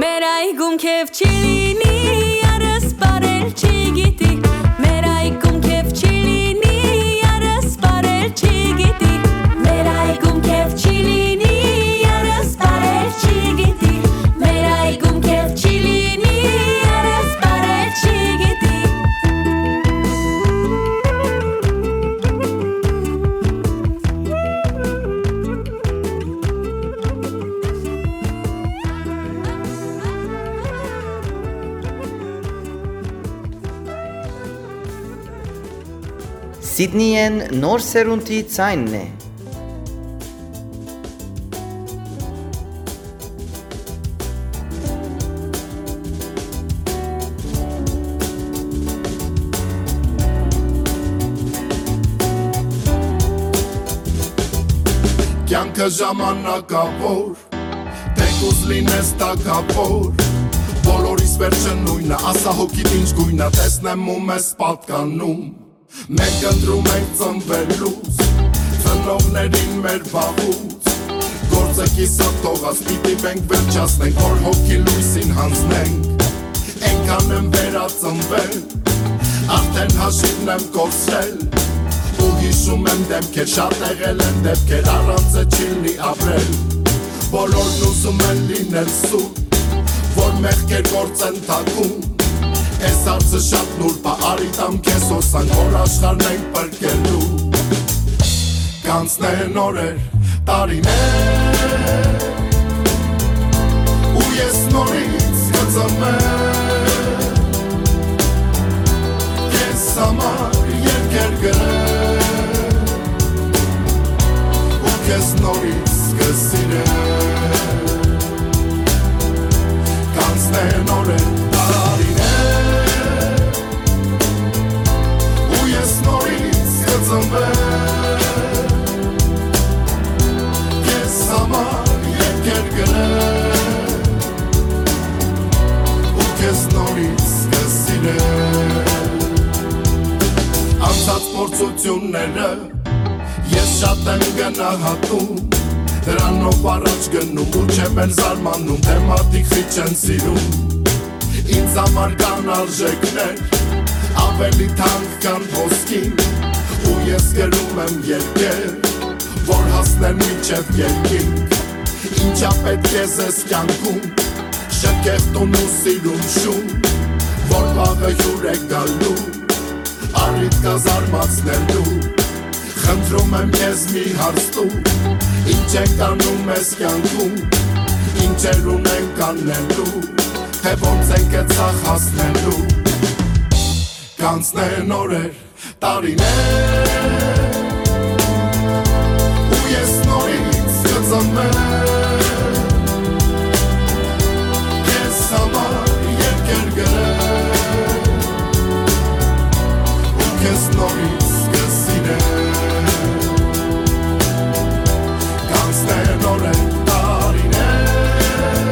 Մեր այգում քեֆ չի լինի, երս պարել չի գիտի։ Մեր այգում քեֆ չի լինի, երս պարել չի գիտի։ Մեր այգում քեֆ չի լինի, երս պարել չի գիտի։ Մեր այգում քեֆ չի լինի, երս պարել չի գիտի։ Սիդնիեն նոր սերունդի ձայնն է։ Կյանքը ժամանակաւոր, թեկուզ լինես թագաւոր, բոլորիս վերջը նոյնը, ասա հոգիդ ինչ գոյնը, տեսնեմ ու մեզ պատկանում։ Մենք ընտրում ենք ծնվելուց, ծնողներին մեր վաղուց, գործը կիսատ թողած, պիտի մենք վերջացնենք, որ հոգի լույսին հանձնենք։ Այնքան եմ վերածնվել, արդեն հաշիվն եմ կորցրել, ու հիշում եմ դեմքեր, շատ եղել են դեպքեր, առանց է չի լի ապրել։ Բոլորն ուզում են լինել սուտ, որ մեղքեր գործեն թաքուն։ Այս հարցը շատ նուրբ ա, արի տամ քեզ հոսանք, որ աշխարհն ենք պրկելու։ Կանցնեն օրեր, տարիներ, ու ես նորից կծնվեմ, քեզ համար երկեր գրեմ, ու քեզ նորից կսիրեմ։ Կանցնեն օրեր, տարիներ, ու ես նորից կծնվեմ, քեզ համար երկեր գրեմ, ու քեզ նորից կսիրեմ։ Անցած փորձությունները ես շատ եմ գնահատում, դրանով առաջ գնում ու չեմ էլ զարմանում, թե մարդիկ խիչ են սիրում։ Ինձ համար կան արժեքներ, ավելի թանկ քան ոսկին, ու ես գրում եմ երկեր, որ հասնեն մինչև երկինք։ Ինչա պետք է զես կյանքում, շքեղ տուն ու սիրուն շուն, որ վաղը հյուր է գալու, առիթ կա զարմացնելու։ Խնդրում եմ քեզ մի հարց տու, ինչ ենք անում այս կյանքում, ինչեր ունենք անելու, թե ոնց ենք այդ սաղ հասնելու։ Կանցնեն օրեր, տարիներ, ու ես նորից կծնվեմ, քեզ համար երկեր գրեմ, ու քեզ նորից կսիրեմ։ Կանցնեն օրեր, տարիներ,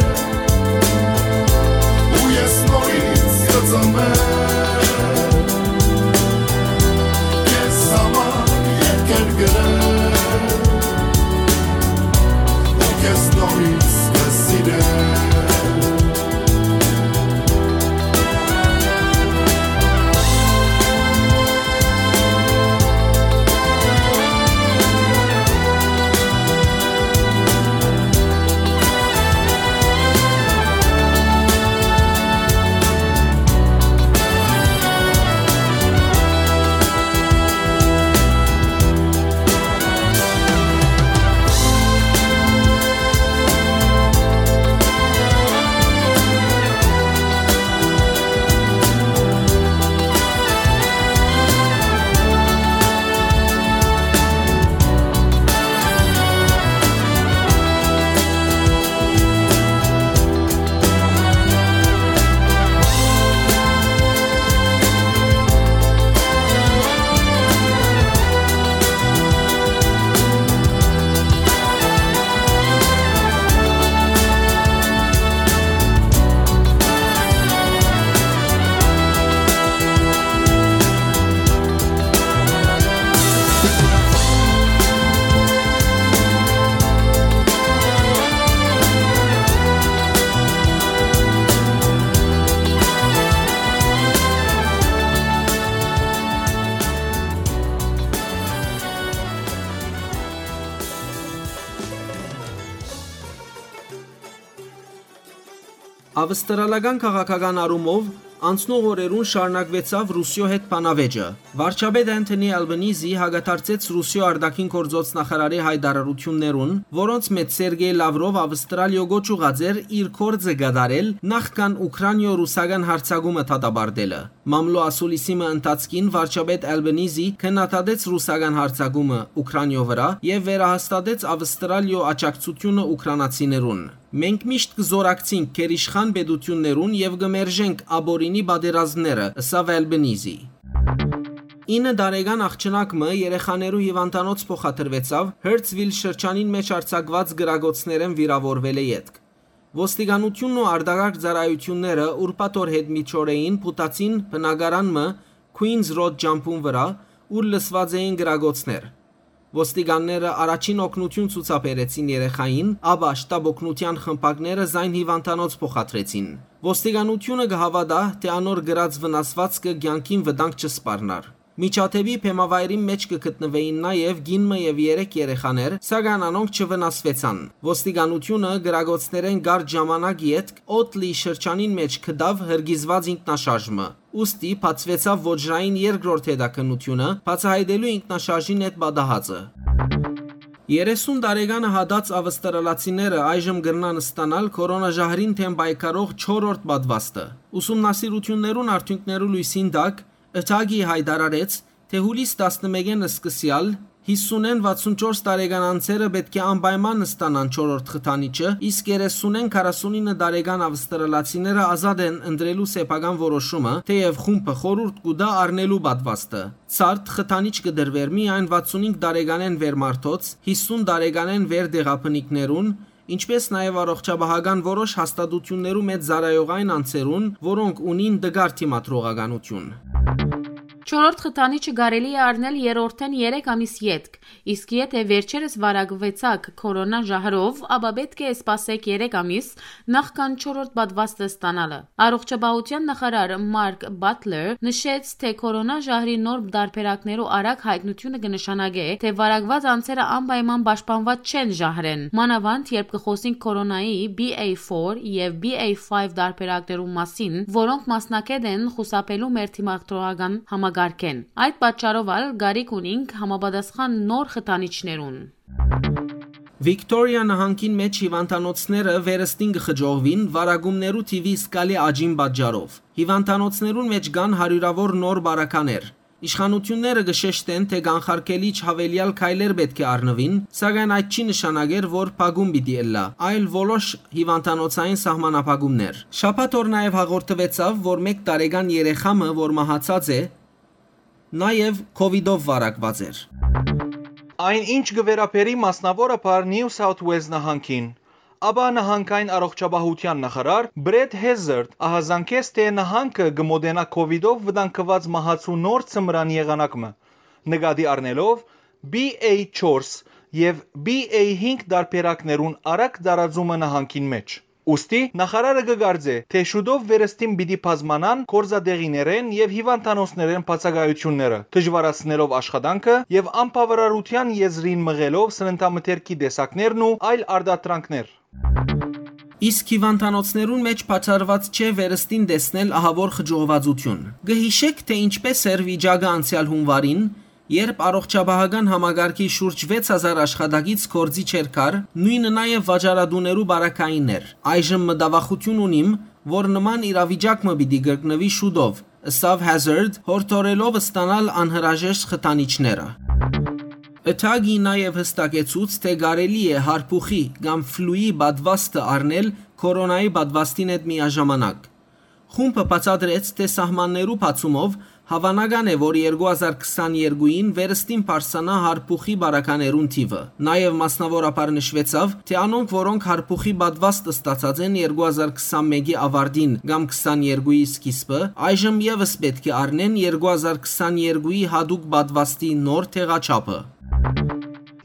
ու ես նորից կծնվեմ, քեզ համար Ավստրալական քաղաքական առումով անցնող օրերուն շարունակուեցաւ Ռուսիոյ հետ բանավէճը։ Վարչապետ Անթոնի Ալբանիզի հակադարձեց Ռուսիոյ արտաքին գործոց նախարարի հայտարարութիւններուն, որոնց մէջ Սերգեյ Լավրով Ավստրալիոյ կոչ ուղղած էր իր գործը կատարել, նախքան Ուքրանիոյ ռուսական յարձակումը դատապարտելը։ Մամլոյ ասուլիսի մը ընթացքին վարչապետ Ալբանիզի քննադատեց ռուսական յարձակումը Ուքրանիոյ վրայ եւ վերահաստատեց Ավստրալիոյ աջակցութիւնը ուքրանացիներուն։ «Մենք միշտ կը զօրակցինք գերիշխան պետութիւններուն եւ կը մերժենք ապօրինի պատերազմները», ըսաւ Ալբանիզի։ Ինը տարեկան աղջնակ մը երեխաներու հիւանդանոց փոխադրուեցաւ Հըրցվիլ շրջանին մէջ արձակուած կրակոցներէն վիրաւորուելէ ետք։ Ոստիկանութիւնն ու արտակարգ ծառայութիւնները ուրբաթ օր յետմիջօրեին փութացին բնակարան մը Քուինզ Ռոդ ճամբուն վրայ, ուր լսուած էին կրակոցներ։ Ոստիկանները առաջին օգնութիւն ցուցաբերեցին երեխային, ապա շտապօգնութեան խմբակները զայն հիւանդանոց փոխադրեցին։ Ոստիկանութիւնը կը հաւատայ, թէ անոր կրած վնասուածքը կեանքին վտանգ չսպառնար։ Միջադէպի բեմավայրին մէջ կը գտնուէին նաեւ կին մը եւ երեք երեխաներ, սակայն անոնք չվնասուեցան։ Ոստիկանութիւնը կրակոցներէն կարճ ժամանակ ետք Օտլի շրջանին մէջ գտաւ հրկիզուած ինքնաշարժ մը, ուստի բացուեցաւ ոճրային երկրորդ հետաքննութիւնը՝ բացայայտելու ինքնաշարժին հետ պատահածը։ Երեսուն տարեկանը հատած ավստրալացիները այժմ կրնան ստանալ քորոնաժահրին դէմ պայքարող չորրորդ պատվաստը։ Ուսումնասիրութիւններուն արդիւնքներու լոյսին տակ, Ըթագի հայտարարեց, թէ յուլիս տասնմէկէն սկսեալ յիսունէն վաթսունչորս տարեկան անձերը պէտք է անպայման ստանան չորրորդ խթանիչը, իսկ երեսունէն քառասունինը տարեկան ավստրալացիները ազատ են ընտրելու սեփական որոշումը, թէեւ խումբը խորհուրդ կու տայ առնելու պատվաստը։ Ցարդ խթանիչ կը տրուէր միայն վաթսունհինգ տարեկանէն վեր մարդոց, յիսուն տարեկանէն վեր տեղաբնիկներուն, ինչպէս նաեւ առողջապահական որոշ հաստատութիւններու մէջ ծառայող այն անձերուն, որոնք ունին տկար դիմադրողականութիւն։ Չորրորդ խթանիչը կարելի է առնել երրորդէն երեք ամիս ետք, իսկ եթէ վերջերս վարակուեցաք քորոնա ժահրով, ապա պէտք է սպասեք երեք ամիս, նախքան չորրորդ պատվաստը ստանալը։ Առողջապահութեան նախարար Մարկ Բատլեր նշեց, թէ քորոնա ժահրի նոր տարբերակներու արագ յայտնութիւնը կը նշանակէ, թէ վարակուած անձերը անպայման պաշտպանուած չեն ժահրէն, մանաւանդ երբ կը խօսինք քորոնայի B A four եւ B A five տարբերակներու մասին, որոնք մասնակէտ են խուսափելու մեր դիմադրողական համակարգէն։ Այդ պատճառով ալ կարիք ունինք համապատասխան նոր խթանիչներուն։ Վիկտորիա նահանգին մէջ հիւանդանոցները վերստին կը խճողուին վարակումներու թիւի զգալի աճին պատճառով։ Հիւանդանոցներուն մէջ կան հարիւրաւոր նոր բարականեր։ Իշխանութիւնները կը շեշտեն, թէ կանխարգելիչ յաւելեալ քայլեր պէտք է առնուին, սակայն այդ չի նշանակեր, որ փակում պիտի ըլլայ, այլ որոշ հիւանդանոցային սահմանափակումներ։ Շաբաթ օր նաեւ հաղորդուեցաւ, որ մէկ տարեկան երեխայ մը, որ մահացած է, նաեւ քովիդով վարակուած էր։ Այն ինչ կը վերաբերի մասնաւորաբար New South Wales նահանգին, ապա նահանգային առողջապահութեան նախարար Բրեդ Հեզերդ ահազանգեց, թէ նահանգը կը մօտենայ քովիդով վտանգուած մահացու նոր ձմրան եղանակ մը, նկատի առնելով B A four եւ B A five տարբերակներուն արագ տարածումը նահանգին մէջ։ Ուստի նախարարը կը կարծէ, թէ շուտով վերստին պիտի բազմանան գործատեղիներէն եւ հիւանդանոցներէն բացակայութիւնները, դժուարացնելով աշխատանքը եւ անբաւարարութեան եզրին մղելով սննդամթերքի տեսակներն ու այլ արտադրանքներ։ Իսկ հիւանդանոցներուն մէջ բացառուած չէ վերստին տեսնել ահաւոր խճողուածութիւն։ Կը յիշէք, թէ ինչպէս էր վիճակը անցեալ յունուարին, երբ առողջապահական համակարգի շուրջ վեց հազար աշխատակից գործի չէր կար, նոյնը նաեւ վաճառատուներու բարակայինն էր։ Այժմ մտավախութիւն ունիմ, որ նման իրավիճակ մը պիտի կրկնուի շուտով, ըսաւ Հեզերդ, յորդորելով ստանալ անհրաժեշտ խթանիչները։ Ըթագի նաեւ հստակեցուց, թէ կարելի է հարբուխի կամ ֆլուի պատվաստը առնել քորոնայի պատվաստին հետ միաժամանակ։ Խումբը բացատրեց, թէ սահմաններու բացումով հաւանական է, որ երկու հազար քսաներկուին վերստին բարձրանայ հարբուխի բարականերուն թիւը։ Նաեւ մասնաւորաբար նշուեցաւ, թէ անոնք, որոնք հարբուխի պատվաստ ստացած են երկու հազար քսանմէկի աւարտին կամ քսաներկուի սկիզբը, այժմ եւս պէտք է առնեն երկու հազար քսաներկուի յատուկ պատվաստի նոր տեղաչափը։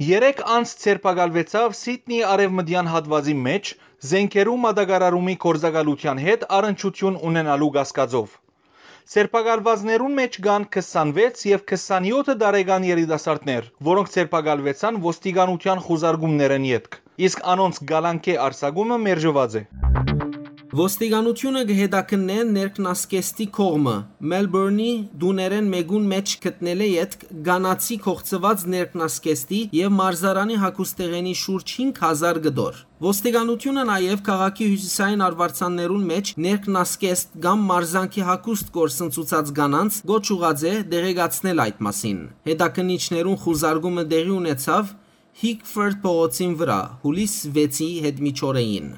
Երեք անձ ձերբակալուեցաւ Սիդնի արեւմտեան հատուածի մէջ, զէնքերու մատակարարումի գործակալութեան հետ առնչութիւն ունենալու կասկածով։ Ձերբակալուածներուն մէջ կան քսանվեց եւ քսանեօթ տարեկան երիտասարդներ, որոնք ձերբակալուեցան ոստիկանութեան խուզարկումներէն ետք, իսկ անոնց կալանքէ արձակումը մերժուած է։ Ոստիկանութիւնը կը հետաքննէ ներքնասկեստի կողմը։ Մելբորնի տուներէն մէկուն մէջ գտնելէ ետք կանացի կողցուած ներքնասկեստի եւ մարզարանի հագուստեղէնի շուրջ հինգ հազար կտոր։ Ոստիկանութիւնը նաեւ քաղաքի հիւսիսային արուարձաններուն մէջ ներքնասկեստ կամ մարզանքի հագուստ կորսնցուցած կանանց կոչ ուղղած է տեղեկացնել այդ մասին։ Հետաքննիչներուն խուզարկումը տեղի ունեցաւ Հիքֆորդ փողոցին վրայ, հուլիս վեցի հետ միջօրեին։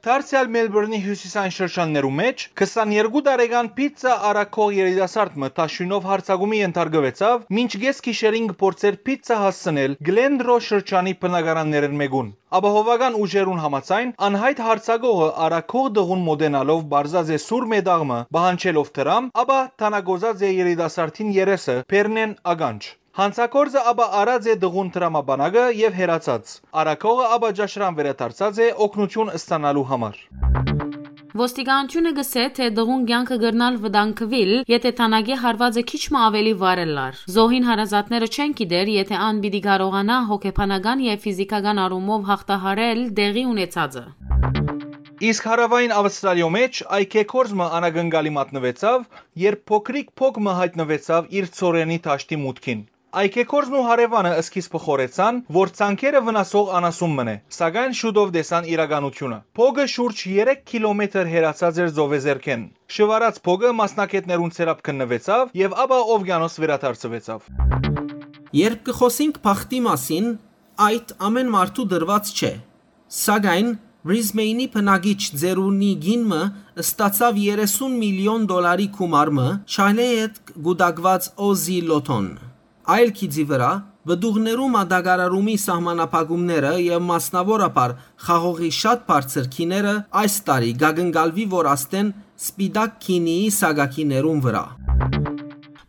Դարձեալ Մելբորնի հիւսիսային շրջաններու մէջ քսաներկու տարեկան պիցցա առաքող երիտասարդ մը թաշոյնով յարձակումի ենթարկուեցաւ, մինչ կէս գիշերին կը փորձէր պիցցա հասցնել Գլենրո շրջանի բնակարաններէն մէկուն։ Ապահովական ուժերուն համաձայն, անյայտ յարձակողը առաքող տղուն մօտենալով պարզած է սուր մետաղ մը, պահանջելով դրամ, ապա թանագոզած է երիտասարդին երեսը բեռնէն ականջ։ Յանցագործը ապա առած է տղուն դրամապանակը եւ հեռացած։ Առաքողը ապա ճաշարան վերադարձած է օգնութիւն ստանալու համար։ Ոստիկանութիւնը կ'ըսէ, թէ տղուն կեանքը կրնար վտանգուիլ, եթէ թանագի հարուածը քիչ մը աւելի վառ ըլլար։ Զոհին հարազատները չեն գիտեր, եթէ ան պիտի կարողանայ հոգեբանական եւ ֆիզիքական առումով յաղթահարել տեղի ունեցածը։ Իսկ հարաւային Աւստրալիոյ մէջ այգեգործ մը անակնկալի մատնուեցաւ, երբ փոքրիկ փոք մը յայտնուեցաւ իր ցորենի դաշտի մուտքին։ Այգեգործն ու հարեւանը սկիզբը խորհեցան, որ ցանկերը վնասող անասուն մըն է, սակայն շուտով տեսան իրականութիւնը։ Փոքը շուրջ երեք քիլոմետր հեռացած էր ծովեզերքէն։ Շուարած փոքը մասնագէտներուն ձեռապ գտնուեցաւ եւ ապա ովկիանոս վերադարձուեցաւ։ Երբ կը խօսինք բախտի մասին, այդ ամէն մարդու տրուած չէ։ Սակայն Բրիզմեյնի բնակիչ Ձերունի կին մը ստացաւ երեսուն միլիոն դոլարի գումար մը չայլեյետ կուտակուած Օզի Լոթոն։ Այլ գիծի վրայ, պտուղներու մատակարարումի սահմանափակումները եւ մասնաւորաբար խաղողի շատ բարձր գիները այս տարի կակնկալուի, որ աստեն սպիտակ գինիի սակագիներուն վրայ։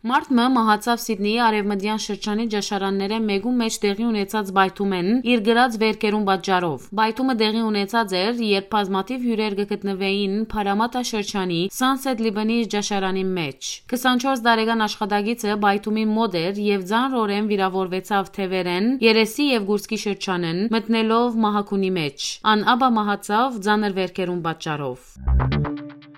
Մարդ մը մահացաւ Սիդնիի արեւմտեան շրջանի ճաշարաններէն մէկու մէջ տեղի ունեցած պայթումէն իր կրած վերքերուն պատճառով։ Պայթումը տեղի ունեցած էր, երբ բազմաթիւ հիւրեր կը գտնուէին Փարամատա շրջանի Sunset Libanese ճաշարանի մէջ։ Քսանչորս տարեկան աշխատակիցը պայթումին մօտ էր եւ ծանրօրէն վիրաւորուեցաւ թեւերէն, երեսի եւ կուրծքի շրջանէն, մտնելով մահագունի մէջ։ Ան ապա մահացաւ ծանր վերքերուն պատճառով։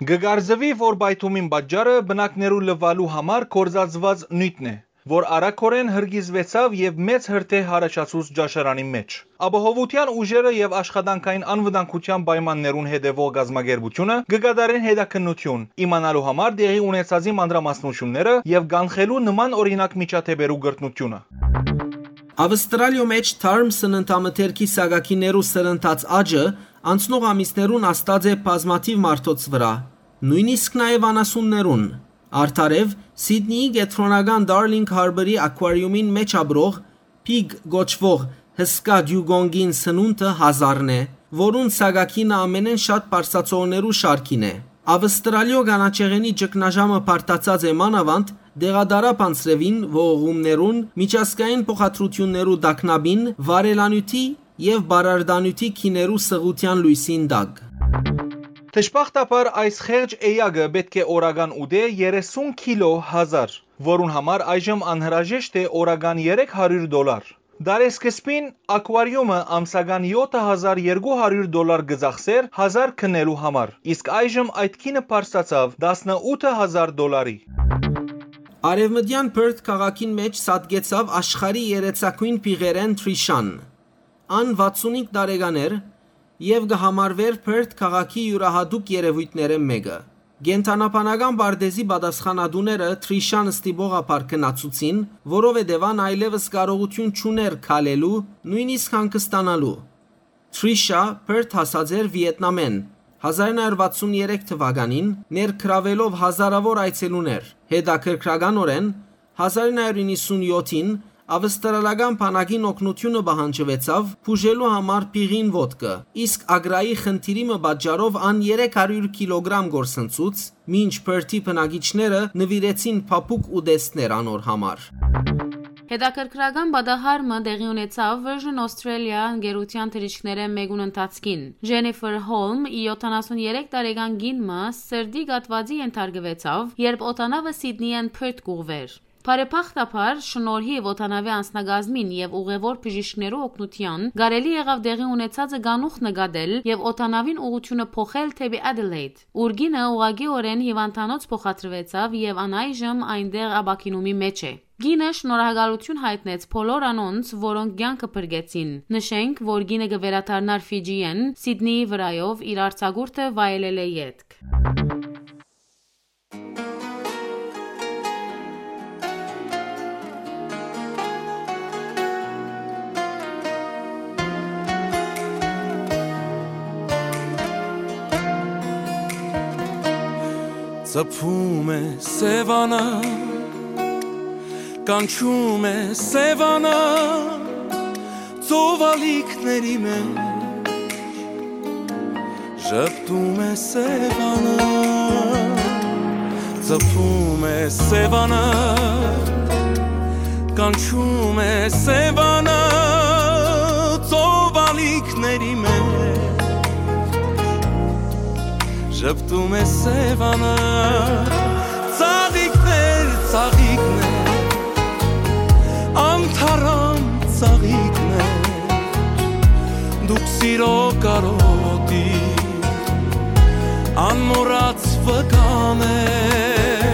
Կը կարծուի, որ պայթումին պատճառը բնակներու լուալու համար կործածուած նիւթն է, որ արագօրէն հրկիզուեցաւ եւ մեծ հրդեհ յառաջացուց ճաշարանի մէջ։ Ապահովութեան ուժերը եւ աշխատանքային անվտանգութեան պայմաններուն հետեւող կազմակերպութիւնը կը կատարեն հետաքննութիւն, իմանալու համար տեղի ունեցածի մանրամասնութիւնները եւ կանխելու նման օրինակ միջադէպերու կրկնութիւնը։ Աւստրալիոյ մէջ թարմ սննդամթերքի սակագիներու սրընթաց աճը անցնող ամիսներուն ազդած է բազմաթիւ մարդոց վրայ, նոյնիսկ նաեւ անասուններուն։ Արդարեւ, Սիդնիի կեդրոնական Darling Harbour-ի ակուարիումին մէջ ապրող Pig կոչուող հսկայ դիուգոնկին սնունդը հազարն է, որուն սակագինը ամենէն շատ պարսացողներու շարքին է։ Աւստրալիոյ կանաչեղէնի ճգնաժամը բարդացած է մանաւանդ դեղատարափ անձրեւին ողողումներուն, միջազգային փոխադրութիւններու տագնապին, վառելանիւթի եւ պարարտանիւթի գիներու սղութեան լոյսին տակ։ Դժբախտաբար, այս խեղճ էակը պէտք է օրական ուտէ երեսուն քիլո հազար, որուն համար այժմ անհրաժեշտ է օրական երեք հարիւր դոլար։ Դարեսկզբին ակուարիումը ամսական յոթ հազար երկու հարիւր դոլար կը ծախսէր հազար գնելու համար, իսկ այժմ այդ գինը բարձրացաւ տասնութ հազար դոլարի։ Արեւմտեան Perth քաղաքին մէջ սատկեցաւ աշխարհի երեցակոյն փիղերէն Թրիշան։ Ան վաթսունհինգ տարեկան էր եւ կը համարուէր Perth քաղաքի իւրահատուկ երեւոյթներէն մէկը։ Կենդանաբանական պարտէզի պատասխանատուները Թրիշան ստիպողաբար գնացուցին, որովհետեւ ան այլեւս կարողութիւն չունէր քալելու, նոյնիսկ հանգստանալու։ Թրիշա Perth հասած էր Վիետնամէն հազար նոյ հարիւր վաթսուն երեք թուականին՝ ներգրաւելով հազարաւոր այցելուներ։ Հետաքրքրականօրէն, հազար նոյ հարիւր իննսուն յոթին Աւստրալական բանակին օգնութիւնը պահանջուեցաւ բուժելու համար փիղին ոտքը, իսկ Ագրայի խնդիրի մը պատճառով ան երեք հարիւր քիլոգրամ կորսնցուց, մինչ Perth-ի բնակիչները նուիրեցին փափուկ ուտեստներ անոր համար։ Հետաքրքրական պատահար մը տեղի ունեցաւ Virgin Australia ընկերութեան թռիչքներէն մէկուն ընթացքին։ Jennifer Holm, յոթանասուն երեք տարեկան կին մը, սրտի կաթուածի ենթարկուեցաւ, երբ օդանաւը Սիդնիէն Perth կուղղուէր։ Բարեբախտաբար, շնորհիւ օդանաւի անձնակազմին եւ ուղեւոր բժիշկներու օգնութեան, կարելի եղաւ տեղի ունեցածը կանուխ նկատել եւ օդանաւին ուղղութիւնը փոխել դէպի Adelaide, ուր կինը ուղղակիօրէն հիւանդանոց փոխադրուեցաւ եւ ան այժմ այնտեղ ապաքինումի մէջ է։ Կինը շնորհակալութիւն յայտնեց բոլոր անոնց, որոնք կեանքը փրկեցին։ Նշենք, որ կինը կը վերադառնար Ֆիջիէն Սիդնիի վրայով իր արձակուրդը վայելելէ ետք։ Ծփում է Սեւանը, կանչում է Սեւանը, ծովալիքների մեջ ժպտում է Սեւանը, ծփում է Սեւանը, կանչում է Սեւանը, ծովալիքների մեջ ժպտում է Սեւանը, ծաղիկներ, ծաղիկներ, անթարամ ծաղիկներ, դուք սիրո կարոտի անմոռաց վկաներ,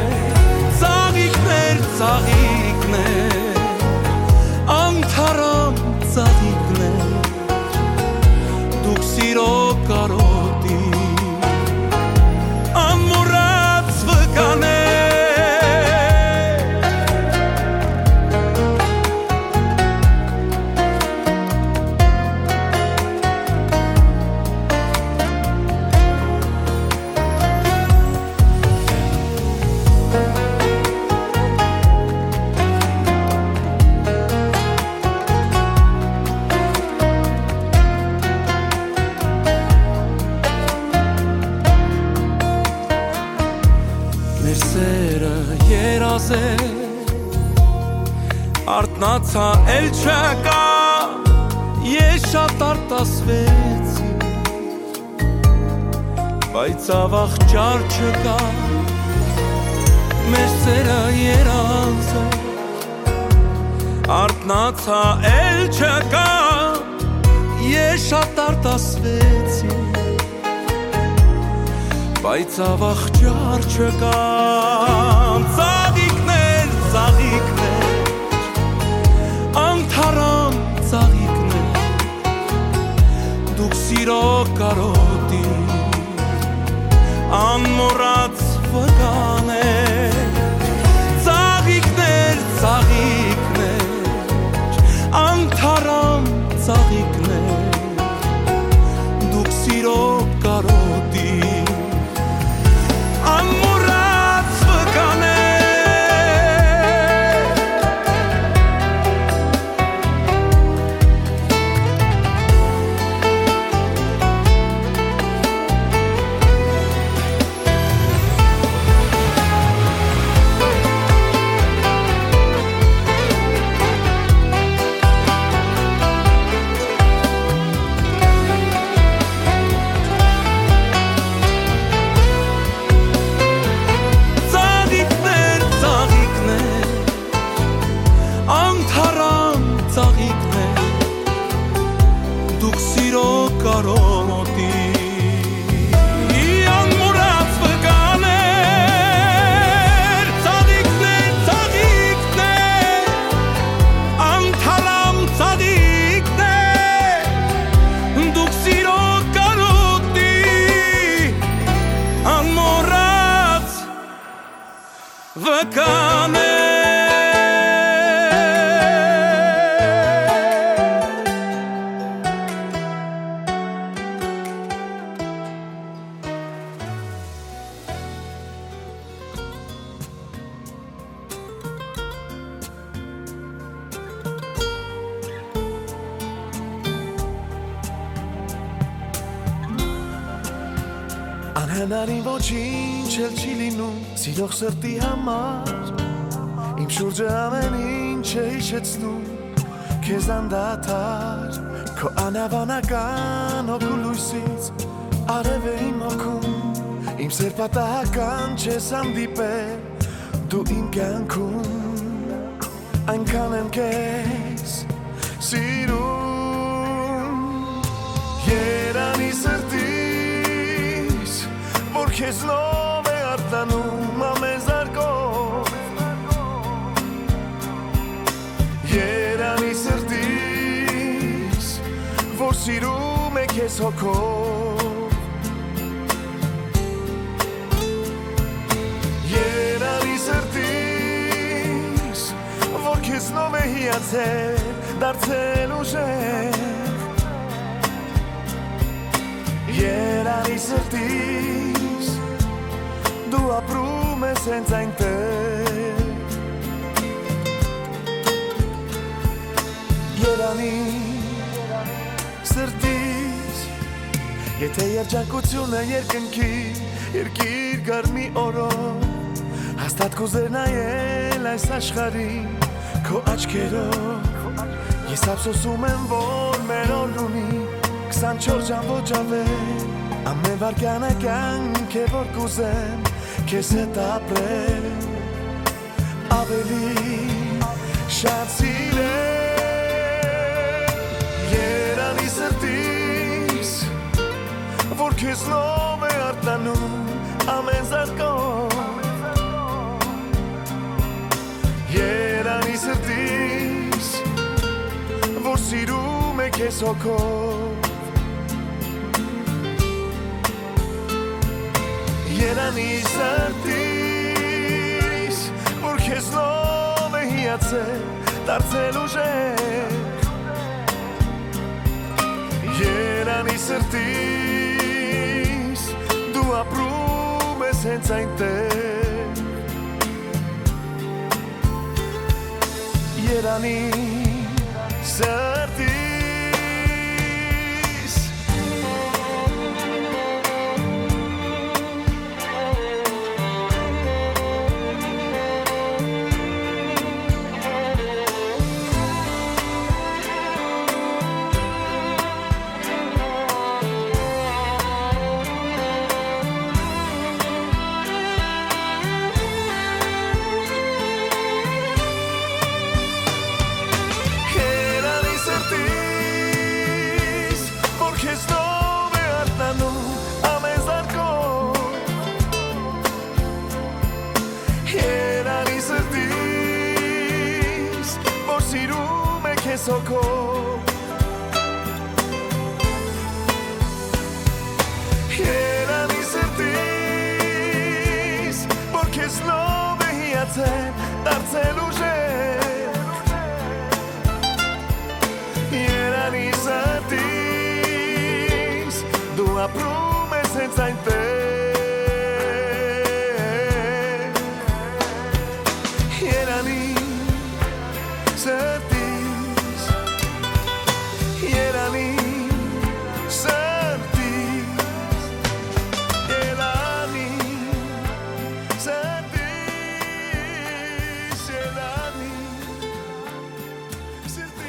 ծաղիկներ, ծաղիկներ, անթարամ ծաղիկներ, դուք սիրո կարոտի անմոռաց վկաներ։ Մեր սերը երազ է, արթնացայ էլ չկայ, ես շատ արտասվեցի, բայց աւաղ ճար չկայ, մեր սերը երազ է, արթնացայ էլ չկայ, ես շատ արտասվեցի, բայց աւաղ ճար չկայ, ծաղիկներ, ծաղիկներ, անթարամ ծաղիկներ, դուք սիրո կարոտի անմոռաց վկաներ, ծաղիկներ, ծաղիկներ, անթարամ ծաղիկներ, դուք սիրո կարոտի անմոռաց վկաներ։ Ծաղիկներ, ծաղիկներ, անթարամ ծաղիկներ, դուք սիրո կարոտի անմոռաց վկաներ, ծաղիկներ, ծաղիկներ, անթարամ ծաղիկներ, դուք սիրո կարոտի անմոռաց վկաներ։ Անհնարին ոչինչ էլ չի լինում, սիրող սրտի համար։ Իմ շուրջը ամեն ինչ է հիշեցնում քեզ անդադար, քո անհավանական հոգու լույսից արև է իմ հոգում, իմ սեր պատահական չես հանդիպել դու իմ կյանքում։ Այնքան եմ քեզ սիրում, երանի սրտիս, որ քեզնով է արթնանում ամեն զարկով։ Երանի սրտիս, որ սիրում է քեզ հոգով։ Երանի սրտիս, որ քեզնով է հիացել, դարձել ուժեղ։ Երանի սրտիս, դու ապրում ես հենց այնտեղ։ Երանի սրտիս, եթե երջանկությունը երկնքի, երկիր գարմի օրով, հաստատ կուզեր նայել այս աշխարհին քո աչքերով։ Ես ափսոսում եմ, որ մեր օրն ունի քսանչորս ժամ ոչ ավել, ամեն վայրկյանը կյանք է, որ կուզեմ քեզ հետ ապրել, ավելի շատ սիրել։ Երանի սրտիս, որ քեզնով է արթնանում ամեն զարկով։ Երանի սրտիս, որ սիրում է քեզ հոգով։ Երանի սրտիս, որ քեզնով է հիացել, դարձել ուժեղ։ Երանի սրտիս, դու ապրում ես հենց այնտեղ։ Երանի սրտիս։ Երանի սրտիս, որ քեզնով է արթնանում ամեն զարկով։ Երանի սրտիս, որ սիրում է քեզ հոգով։ Երանի սրտիս, որ քեզնով է հիացել, դարձել ուժեղ։ Երանի սրտիս, դու ապրում ես հենց այնտեղ։ Երանի սրտիս, երանի սրտիս, երանի սրտիս, երանի սրտիս։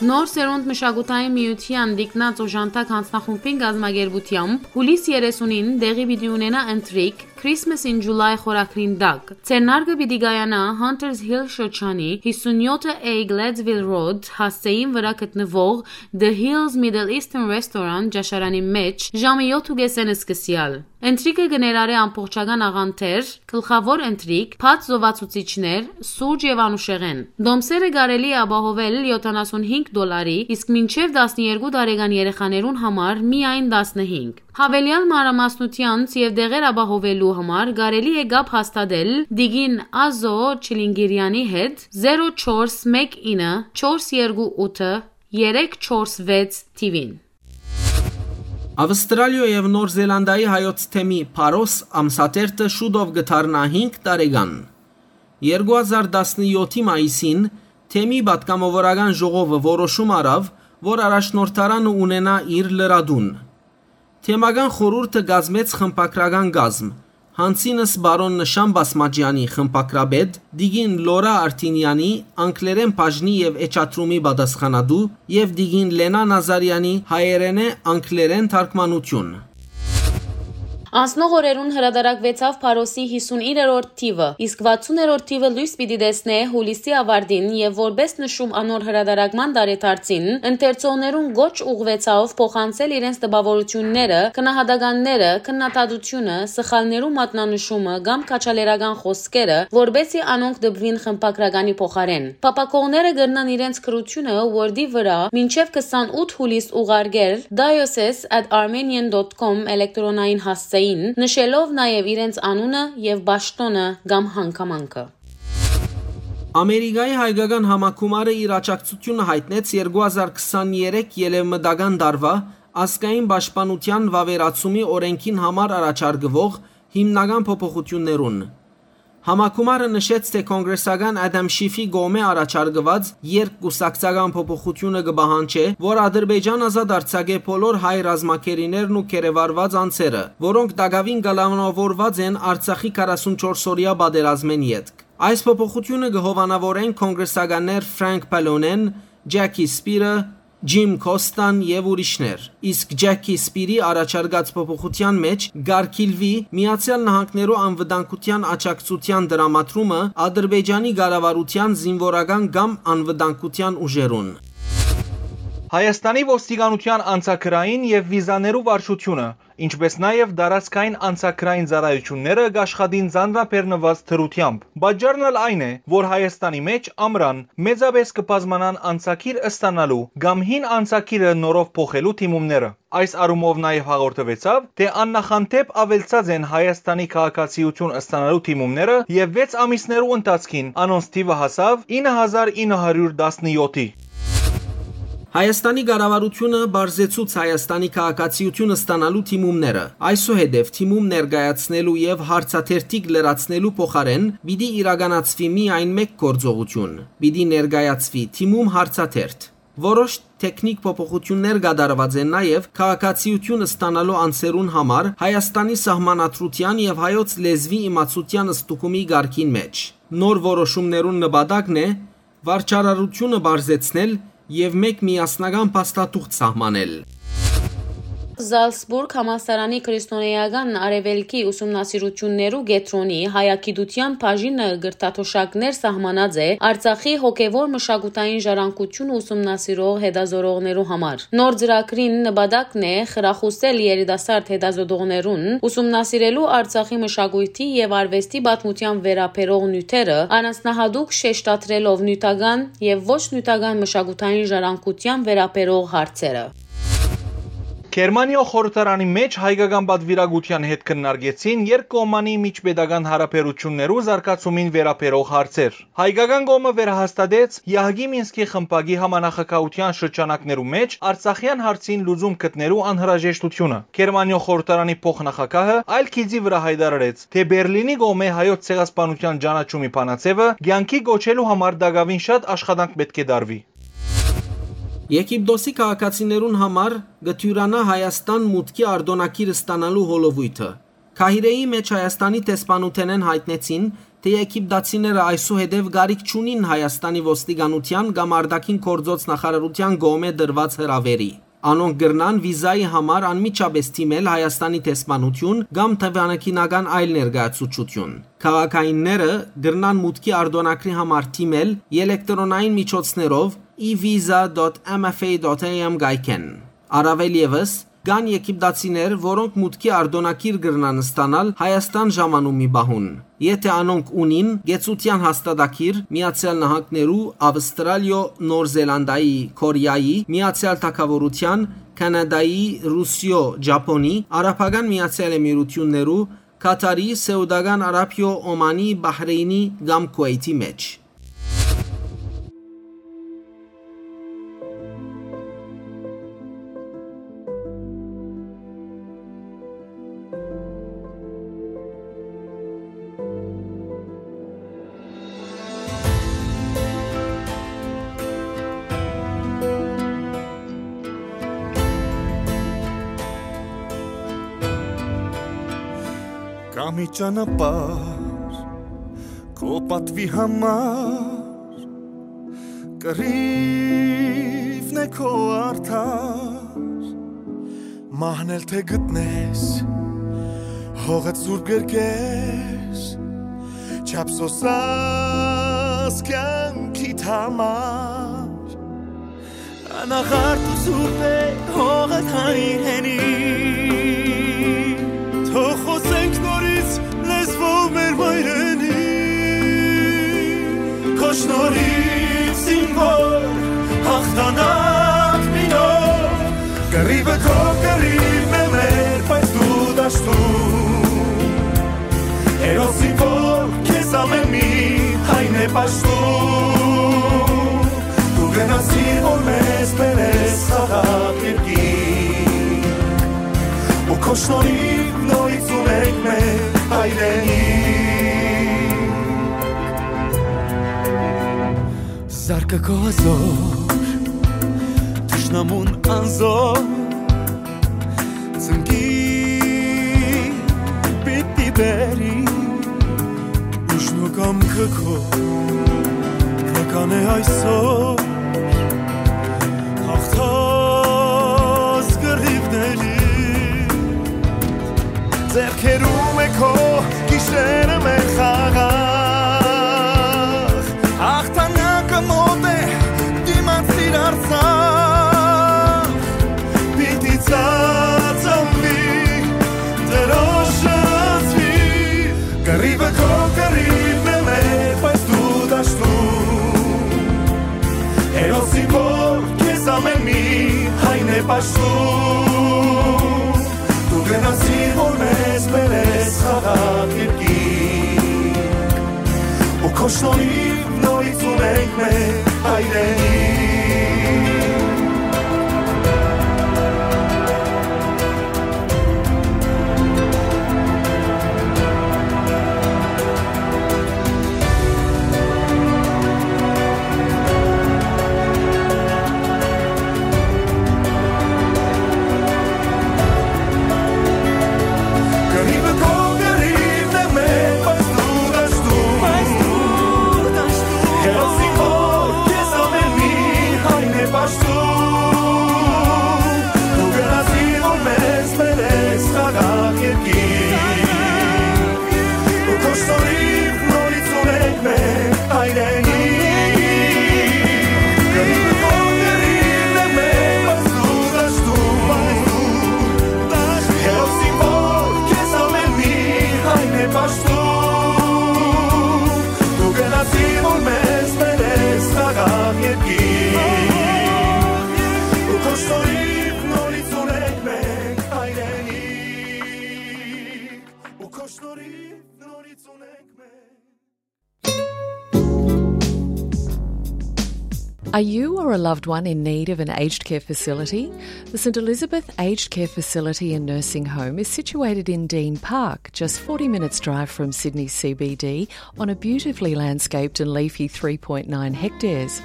Նոր սերունդ մշակութային միութեան Տիկնած օժանդակ յանձնախումբին կազմակերպութեամբ հուլիս երեսունին տեղի պիտի ունենայ ընթրիք Christmas in July խորագրին տակ։ Ձեռնարկը պիտի կայանայ Hunters Hill շրջանի հիսունյոթ A Gladesville Road հասցէին վրայ գտնուող The Hills Middle Eastern Restaurant ճաշարանի մէջ ժամը յոթ ու կեսէն սկսեալ։ Ընթրիքը կը ներառէ ամբողջական աղանդեր, գլխաւոր ընթրիք, բաց զովացուցիչներ, սուրճ եւ անուշեղէն։ Տոմսերը կարելի է ապահովել յոթանասունհինգ դոլարի, իսկ մինչեւ տասներկու տարեկան երեխաներուն համար միայն տասնհինգ։ Յաւելեալ մանրամասնութեանց եւ տեղեր ապահովելու համար կարելի է կապ հաստատել Տիկին Ազո Չիլինգիրյանի հետ զերո չորս մէկ ինը չորս երկու ութը երեք չորս վեց թիվին։ Ավստրալիոյ եւ Նոր Զելանդիայի հայոց թեմի Փարոս ամսաթերթը շուտով կը դառնայ հինգ տարեկան։ Երկու հազար տասնյոթի մայիսին թեմի պատգամավորական ժողովը որոշում առաւ, որ առաջնորդարանը ունենայ իր լրատուն։ Թեմական խորհուրդը կազմեց խմբագրական կազմ, Յանցինս պարոն Նշան Բասմաճեանի խմբագրապետ, տիկին Լորա Արտինեանի անգլերէն բաժնի եւ էջատրումի պատասխանատու եւ տիկին Լենա Նազարեանի հայերէնէ անգլերէն թարգմանութիւն։ Անցնող օրերուն հրատարակուեցաւ Փարոսի հիսունիններորդ թիվը, իսկ վաթսուններորդ թիվը լոյս պիտի տեսնէ հուլիսի աւարտին եւ որպէս նշում անոր հրատարակման տարեդարձին, ընթերցողներուն կոչ ուղղուեցաւ փոխանցել իրենց տպաւորութիւնները, գնահատականները, քննադատությունը, սխալներու մատնանշումը կամ քաջալերական խօսքերը, որպէսզի անոնք տպուին խմբագրականի փոխարէն։ Փափաքողները կրնան իրենց գրութիւնը Word-ի վրայ մինչեւ քսանութ հուլիս ուղարկել diocese at armenian dot com էլեկտրոնային հասցէին, նշելով նաեւ իրենց անունը եւ պաշտօնը կամ հանգամանքը։ Ամերիկայի հայկական համագումարը իր աջակցութիւնը յայտնեց երկու հազար քսաներեք ելեւմտական տարուայ ազգային պաշտպանութեան վաւերացումի օրէնքին համար առաջարկուող հիմնական փոփոխութիւններուն։ Համագումարը նշեց, թէ կոնգրեսական Ադամ Շիֆի կողմէ առաջարկուած երկկուսակցական փոփոխութիւնը կը պահանջէ, որ Ադրբեջան ազատ արձակէ բոլոր հայ ռազմագերիներն ու գերեվարուած անձերը, որոնք տակաւին կալանաւորուած են Արցախի քառասունչորս օրեայ պատերազմէն ետք։ Այս փոփոխութիւնը կը հովանաւորեն կոնգրեսականներ Ֆրանկ Պալոնեն, Ջեքի Սպիրը, Ջիմ Քոստան եւ ուրիշներ։ Իսկ Ջեքի Սպիրի առաջարկած փոփոխութեան մէջ կարգիլուի Միացեալ Նահանգներու անվտանգութեան աջակցութեան տրամադրումը Ադրբեջանի կառավարութեան զինուորական կամ անվտանգութեան ուժերուն։ Հայաստանի ոստիկանութեան անցագրային եւ վիզաներու վարչութիւնը, ինչպէս նաեւ տարածքային անցագրային ծառայութիւնները կաշխատին ծանրաբեռնուած դրութեամբ։ Պատճառն ալ այն է, որ Հայաստանի մէջ ամրան մեծապէս կը բազմանան անցագիր ստանալու կամ հին անցագիրը նորով փոխելու դիմումները։ Այս առումով նաեւ հաղորդուեցաւ, թէ աննախանտէպ աւելցած են Հայաստանի քաղաքացիութիւն ստանալու դիմումները եւ վեց ամիսներու ընթացքին անոնց թիվը հասաւ ինը հազար ինը հարիւր տասնեօթի։ Հայաստանի կառավարութիւնը պարզեցուց Հայաստանի քաղաքացիութիւն ստանալու դիմումները։ Այսուհետեւ դիմում ներկայացնելու եւ հարցաթերթիկ լրացնելու փոխարէն պիտի իրականացուի միայն մէկ գործողութիւն։ Պիտի ներկայացուի դիմում հարցաթերթ։ Որոշ թեքնիկ փոփոխութիւններ կատարուած են նաեւ քաղաքացիութիւն ստանալու անձերուն համար Հայաստանի սահմանադրութեան եւ հայոց լեզուի իմացութեան ստուգումի կարգին մէջ։ Նոր որոշումներուն նպատակն է վարչարարութիւնը պարզեցնել եւ մէկ միասնական փաստաթուղթ սահմանել։ Զալցբուրգ համալսարանի քրիստոնէական արեւելքի ուսումնասիրութիւններու կեդրոնի հայագիտութեան բաժինը կրթաթոշակներ սահմանած է Արցախի հոգեւոր մշակութային ժառանգութիւնը ուսումնասիրող հետազորողներու համար։ Նոր ծրագրին նպատակն է խրախուսել երիտասարդ հետազոտողներուն ուսումնասիրելու Արցախի մշակոյթի եւ արուեստի պատմութեան վերաբերող նիւթերը, առանձնահատուկ շեշտադրելով նիւթական եւ ոչ նիւթական մշակութային ժառանգութեան վերաբերող հարցերը։ Գերմանիոյ խորհրդարանի մէջ հայկական պատուիրակութեան հետ քննարկեցին երկկողմանի միջպետական յարաբերութիւններու զարգացումին վերաբերող հարցեր։ Հայկական կողմը վերահաստատեց Եահկի Մինսկի խմբակի համանախագահութեան շրջանակներու մէջ արցախեան հարցին լուծում գտնելու անհրաժեշտութիւնը։ Գերմանիոյ խորհրդարանի փոխնախագահը այլ գիծի վրայ յայտարարեց, թէ Բերլինի կողմէ հայոց ցեղասպանութեան ճանաչումի բանաձեւը կեանքի կոչելու համար տակաւին շատ աշխատանք պէտք է տարուի։ Եգիպտոսի քաղաքացիներուն համար կը դիւրանայ Հայաստան մուտքի արտօնագիր ստանալու հոլովոյթը։ Քահիրէի մէջ Հայաստանի դեսպանութենէն յայտնեցին, թէ եգիպտացիները այսուհետեւ կարիք չունին Հայաստանի ոստիկանութեան կամ արտաքին գործոց նախարարութեան կողմէ տրուած հրաւէրի։ Անոնք կրնան վիզայի համար անմիջապէս դիմել Հայաստանի դեսպանութիւն կամ դիվանագիտական այլ ներկայացուցչութիւն։ Քաղաքայինները կրնան մուտքի արտօնագրի համար դիմել ելեկտրոնային միջոցներով e visa dot m f a dot a m կայքէն։ Առաւել եւս, կան եգիպտացիներ, որոնք մուտքի արտօնագիր կրնան ստանալ Հայաստան ժամանումի պահուն, եթէ անոնք ունին կեցութեան հաստատագիր Միացեալ Նահանգներու, Ավստրալիոյ, Նոր Զելանդայի, Կորեայի, Միացեալ Թագաւորութեան, Քանադայի, Ռուսիոյ, Ճապոնի, Արաբական Միացեալ Էմիրութիւններու, Քաթարի, Սէուտական Արաբիոյ, Օմանի, Բահրէյնի կամ Քուէյթի մէջ։ Կան Մի ճանապարհ քո պատվի համար, կռիվն է քո արդար։ Մահն էլ թե գտնես, հողդ սուրբ կերկես, չափ սոսաս կյանքիդ համար։ Անաղարտ ու սուրբ է հողդ հայրենի, թող խոսենք նորից լեզվով մեր մայրենի։ Քո շնորհիվ զինվոր հաղթանակ մի նոր, կռիվը քո կռիվն է մեր, բայց դու դաշտում։ Հերոս զինվոր քեզ ամեն մի հայն է պաշտում։ Դու գնացիր, որ մեզ բերես խաղաղ երկիր, ու քո շնորհիվ նորից ունենք մեր հայրենիք։ Զարկը քո հազոր, թշնամուն անզոր, ծնկի պիտի բերի, ուժն ու կամքը քո նկան է այսօր, հաղթած կռիվների, ձեռքերում է քո գիշերը մեր խաղաղ, հաղթանակը մոտ է, դիմացիր Արցախ, պիտի ծածանվի, դրոշը զգացվի, կռիվը քո կռիվն է մեր, բայց դու դաշտում։ Հերոսի որ քեզ ամեն մի հայն է պաշտում, դու գնացիր, որ մեզ բերես խաղաղ երկիր, ու քո շնորհիվ նորից ունենք մեր հայրենիք։ Are you or a loved one in need of an aged care facility? The St Elizabeth Aged Care Facility and Nursing Home is situated in Dean Park, just forty minutes' drive from Sydney C B D, on a beautifully landscaped and leafy three point nine hectares.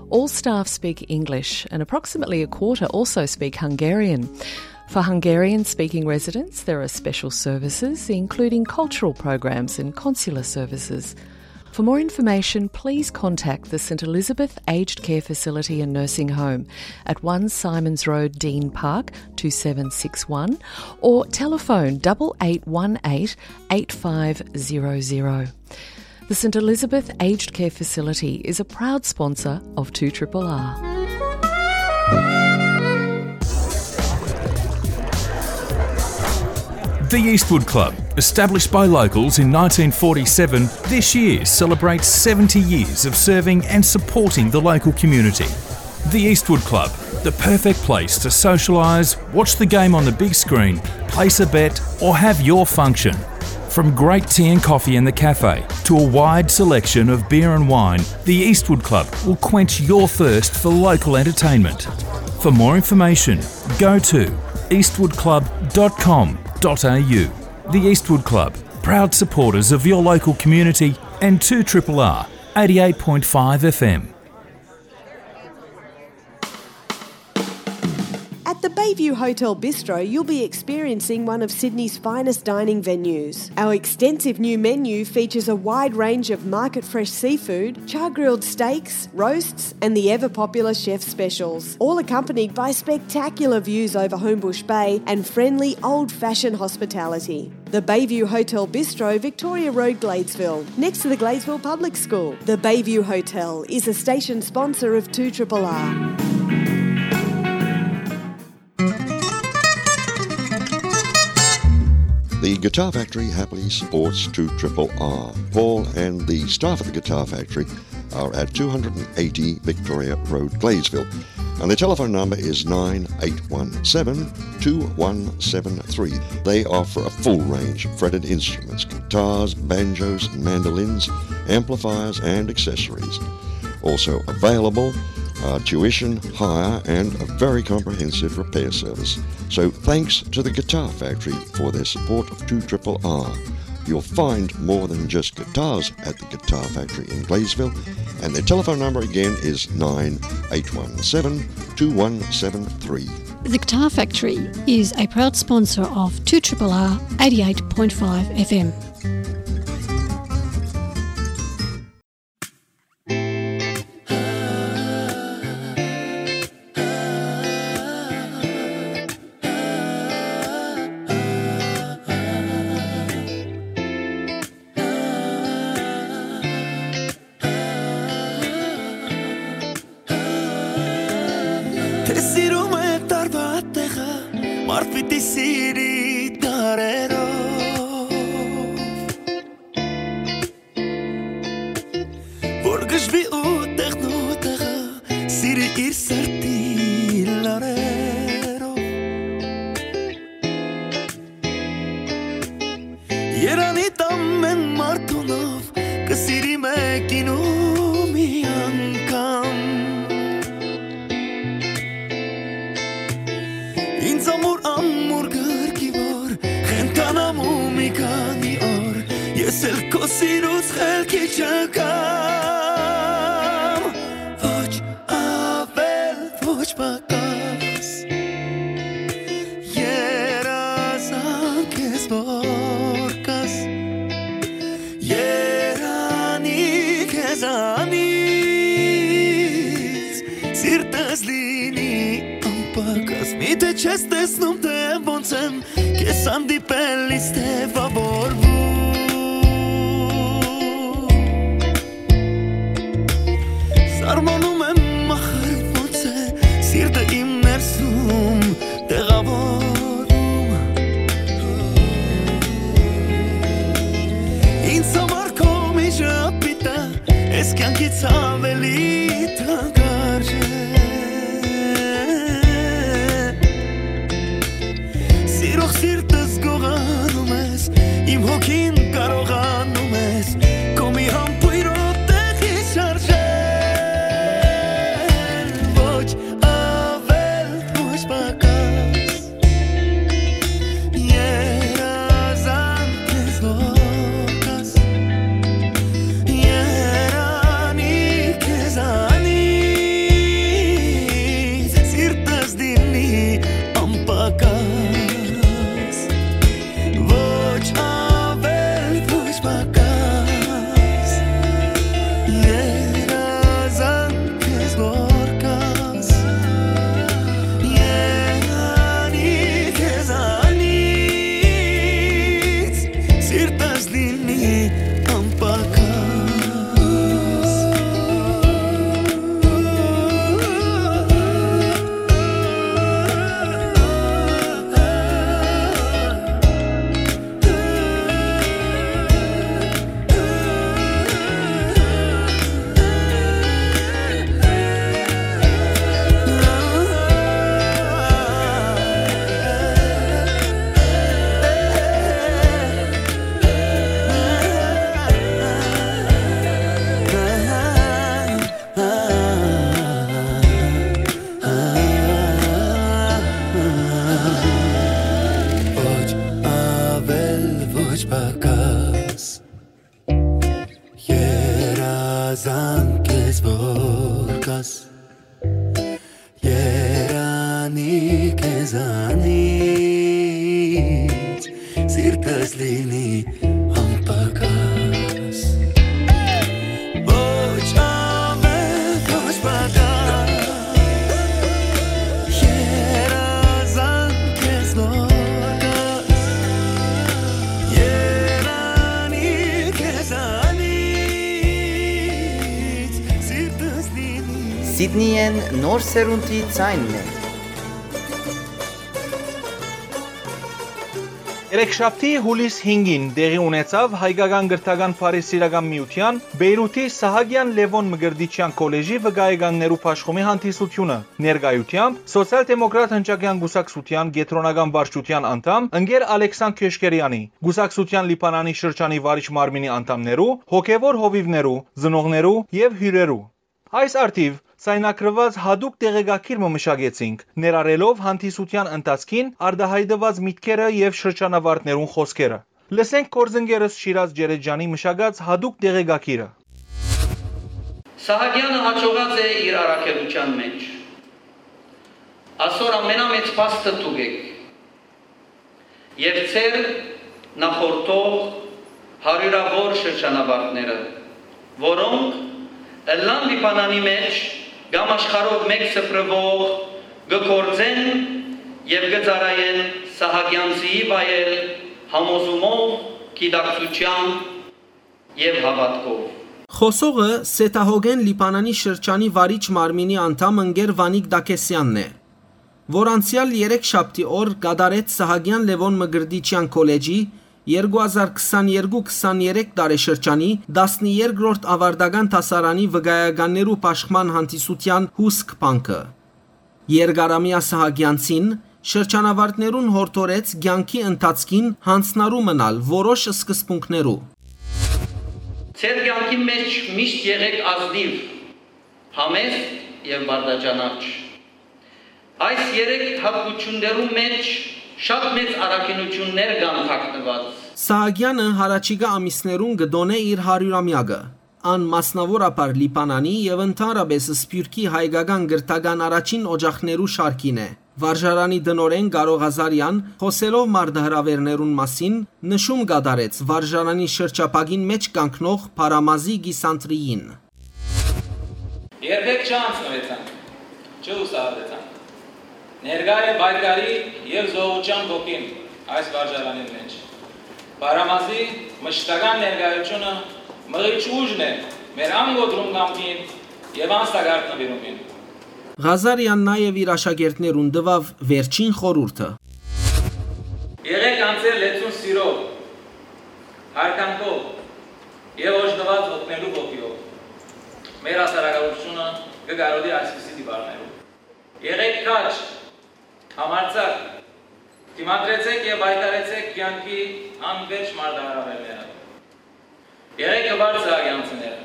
All staff speak English, and approximately a quarter also speak Hungarian. For Hungarian-speaking residents, there are special services, including cultural programs and consular services. For more information, please contact the St Elizabeth Aged Care Facility and Nursing Home at one Symonds Road, Dean Park, two seven six one, or telephone double eight one eight, eight five zero zero. The St Elizabeth Aged Care Facility is a proud sponsor of two triple R. The Eastwood Club, established by locals in nineteen forty-seven, this year celebrates seventy years of serving and supporting the local community. The Eastwood Club, the perfect place to socialise, watch the game on the big screen, place a bet, or have your function. From great tea and coffee in the cafe to a wide selection of beer and wine, the Eastwood Club will quench your thirst for local entertainment. For more information, go to eastwood club dot com dot a u. The Eastwood Club, proud supporters of your local community and two triple R, eighty-eight point five F M. At the Bay View Hotel Bistro, you'll be experiencing one of Sydney's finest dining venues. Our extensive new menu features a wide range of market fresh seafood, char grilled steaks, roasts, and the ever popular chef specials, all accompanied by spectacular views over Homebush Bay and friendly old fashioned hospitality. The Bayview Hotel Bistro, Victoria Road, Gladesville, next to the Gladesville Public School. The Bayview Hotel is a station sponsor of two triple R. The Guitar Factory happily supports two triple R. Paul and the staff at the Guitar Factory are at two hundred and eighty Victoria Road, Gladesville. And the telephone number is nine eight one seven, two one seven three. They offer a full range of fretted instruments, guitars, banjos, mandolins, amplifiers, and accessories. Also available are tuition, hire, and a very comprehensive repair service. So thanks to the Guitar Factory for their support of two triple R. You'll find more than just guitars at the Guitar Factory in Gladesville, and their telephone number again is nine eight one seven, two one seven three. The Guitar Factory is a proud sponsor of two triple R eighty-eight point five F M. Թէ սիրում է տարուա տեղը, մարդ պիտի սիրի դարերով։ Որ գժվի ու տեղն ու տեղը, սիրի իր սրտի լարերով։ Երանի տամ են մարդունով, կը սիրի մեկին ու մի անգամ։ Ինձ ամուր, ամուր գրկի որ, խենթանամ ու մի քանի օր, ես էլ քո սիրուց խելքի չգամ։ Ոչ ավել, ոչ պակաս, երազանք ես որ կաս, երանի քեզանից, սիրտս լինի անպակաս։ Միթէ չես տեսնում, թե ոնց եմ քեզ հանդիպելիս տեւավորվում։ Սարմանում եմ, ախր ոնց է սիրտը իմ ներսում տեղավորում։ Ինձ համար քո միշտ պիտա, ես կյանքից ավելի թանկարժե։ Սիրող սիրտս գողանում ես, իմ հոգին կարողանում ես, քո մի համբույրով տեղի շարժել, ոչ ավել, ոչ պակաս։ Երազանք ես որ կաս, երանի քեզանից, սիրտս դինի անպակաս, ոչ ավել, ոչ պակաս։ Երազանք ես որ կաս, երանի քեզանից, սիրտս լինի անպակաս։ Ոչ ավել, ոչ պակաս, երազանք ես որ կաս, երանի քեզ Զանից սիրտս լինի անպակաս։ Ոչ ավել, ոչ պակաս։ Երազանք քեզնով կաս։ Երանի քեզանից սիրտս լինի։ Սիդնիեն նոր սերունդի ձայնն է։ Երեքշաբթի, յուլիս հինգին տեղի ունեցաւ Հայկական կրթական բարեսիրական միութեան Պէյրութի Սահակեան Լեւոն Մկրտիչեան քոլեժի վկայականներու բաշխումի հանդիսութիւնը, ներկայութեամբ Սոցիալ-դեմոկրատ հնչակեան կուսակցութեան կեդրոնական վարչութեան անդամ ընկեր Ալեքսան Քեշկերեանի, կուսակցութեան Լիբանանի շրջանի վարիչ մարմինի անդամներու, հոգեւոր հովիւներու, ծնողներու եւ հիւրերու։ Այս առթիւ ձայնագրուած յատուկ տեղեկագիր մը մշակեցինք, ներառելով հանդիսութեան ընթացքին արտայայտուած միտքերը եւ շրջանավարտներուն խօսքերը։ Լսենք գործընկերս Շիրազ Ջերեջյանի մշակած յատուկ տեղեկագիրը։ Սահակեանը յաջողած է իր առաքելութեան մէջ։ Ասոր ամենամեծ փաստը դուք էք։ Եւ ձեր նախորդող հարիւրաւոր շրջանավարտները, որոնք ըլլան Լիբանանի մէջ կամ աշխարհով մէկ սփռուող կը գործեն եւ կը ծառայեն Սահակեանցիի վայել համոզումով, գիտակցութեամբ եւ հաւատքով։ Խօսողը Սեդահոգեն Լիբանանի շրջանի վարիչ մարմինի անդամ ընկեր Վանիկ Դակեսեանն է, որ անցեալ երեքշաբթի օր կատարեց Սահակեան Լեւոն Մկրտիչեան քոլեջի երկու հազար քսաներկու քսաներեք տարեշրջանի տասներկրորդ աւարտական դասարանի վկայականներու բաշխման հանդիսութեան հուսք բանկը։ Երկարամեայ Սահակեանցին շրջանավարտներուն յորդորեց կեանքի ընթացքին յանձնառու մնալ որոշ սկզբունքներու։ Ձեր կեանքի մէջ միշտ եղէք ազնիւ, համեստ եւ բարդաճանաչ։ Այս երեք հատկություններու մէջ շատ մեծ առաքինութիւններ կան թաքնուած։ Սահակեանը յառաջիկայ ամիսներուն կը տօնէ իր հարիւրամեակը։ Ան մասնաւորաբար Լիբանանի եւ ընդհանրապէս Սփիւռքի հայկական կրթական առաջին օջախներու շարքին է։ Վարժարանի տնօրէն Կարո Ղազարեան, խօսելով մարտահրաւէրներուն մասին, նշում կատարեց վարժարանի շրջափակին մէջ կանգնող Փարամազի կիսանդրիին։ Երբեք չանցնուեցանք, չլուսահատեցանք։ Ներկայ է պայքարի եւ զոհուչեան ոգին այս վարժարանին մէջ։ Փարամազի մշտական ներկայութիւնը մղիչ ուժն է մեր անկոտրում կամքին եւ անսակարդ նուիրումին։ Ղազարեան նաեւ իր աշակերտներուն տուաւ վերջին խորհուրդը։ Եղեք անձեր լեցուն սիրով, յարգանքով եւ օժտուած օգնելու ոգիով։ Մեր հասարակայնությունը կը կարոտի այսպիսի տիպարներով։ Եղեք քաջ, համարձակ, դիմադրեցեք եւ պայքարեցեք կեանքի անվերջ մարտահրաւէրները։ Եղեք հպարտ սահակեանցիները,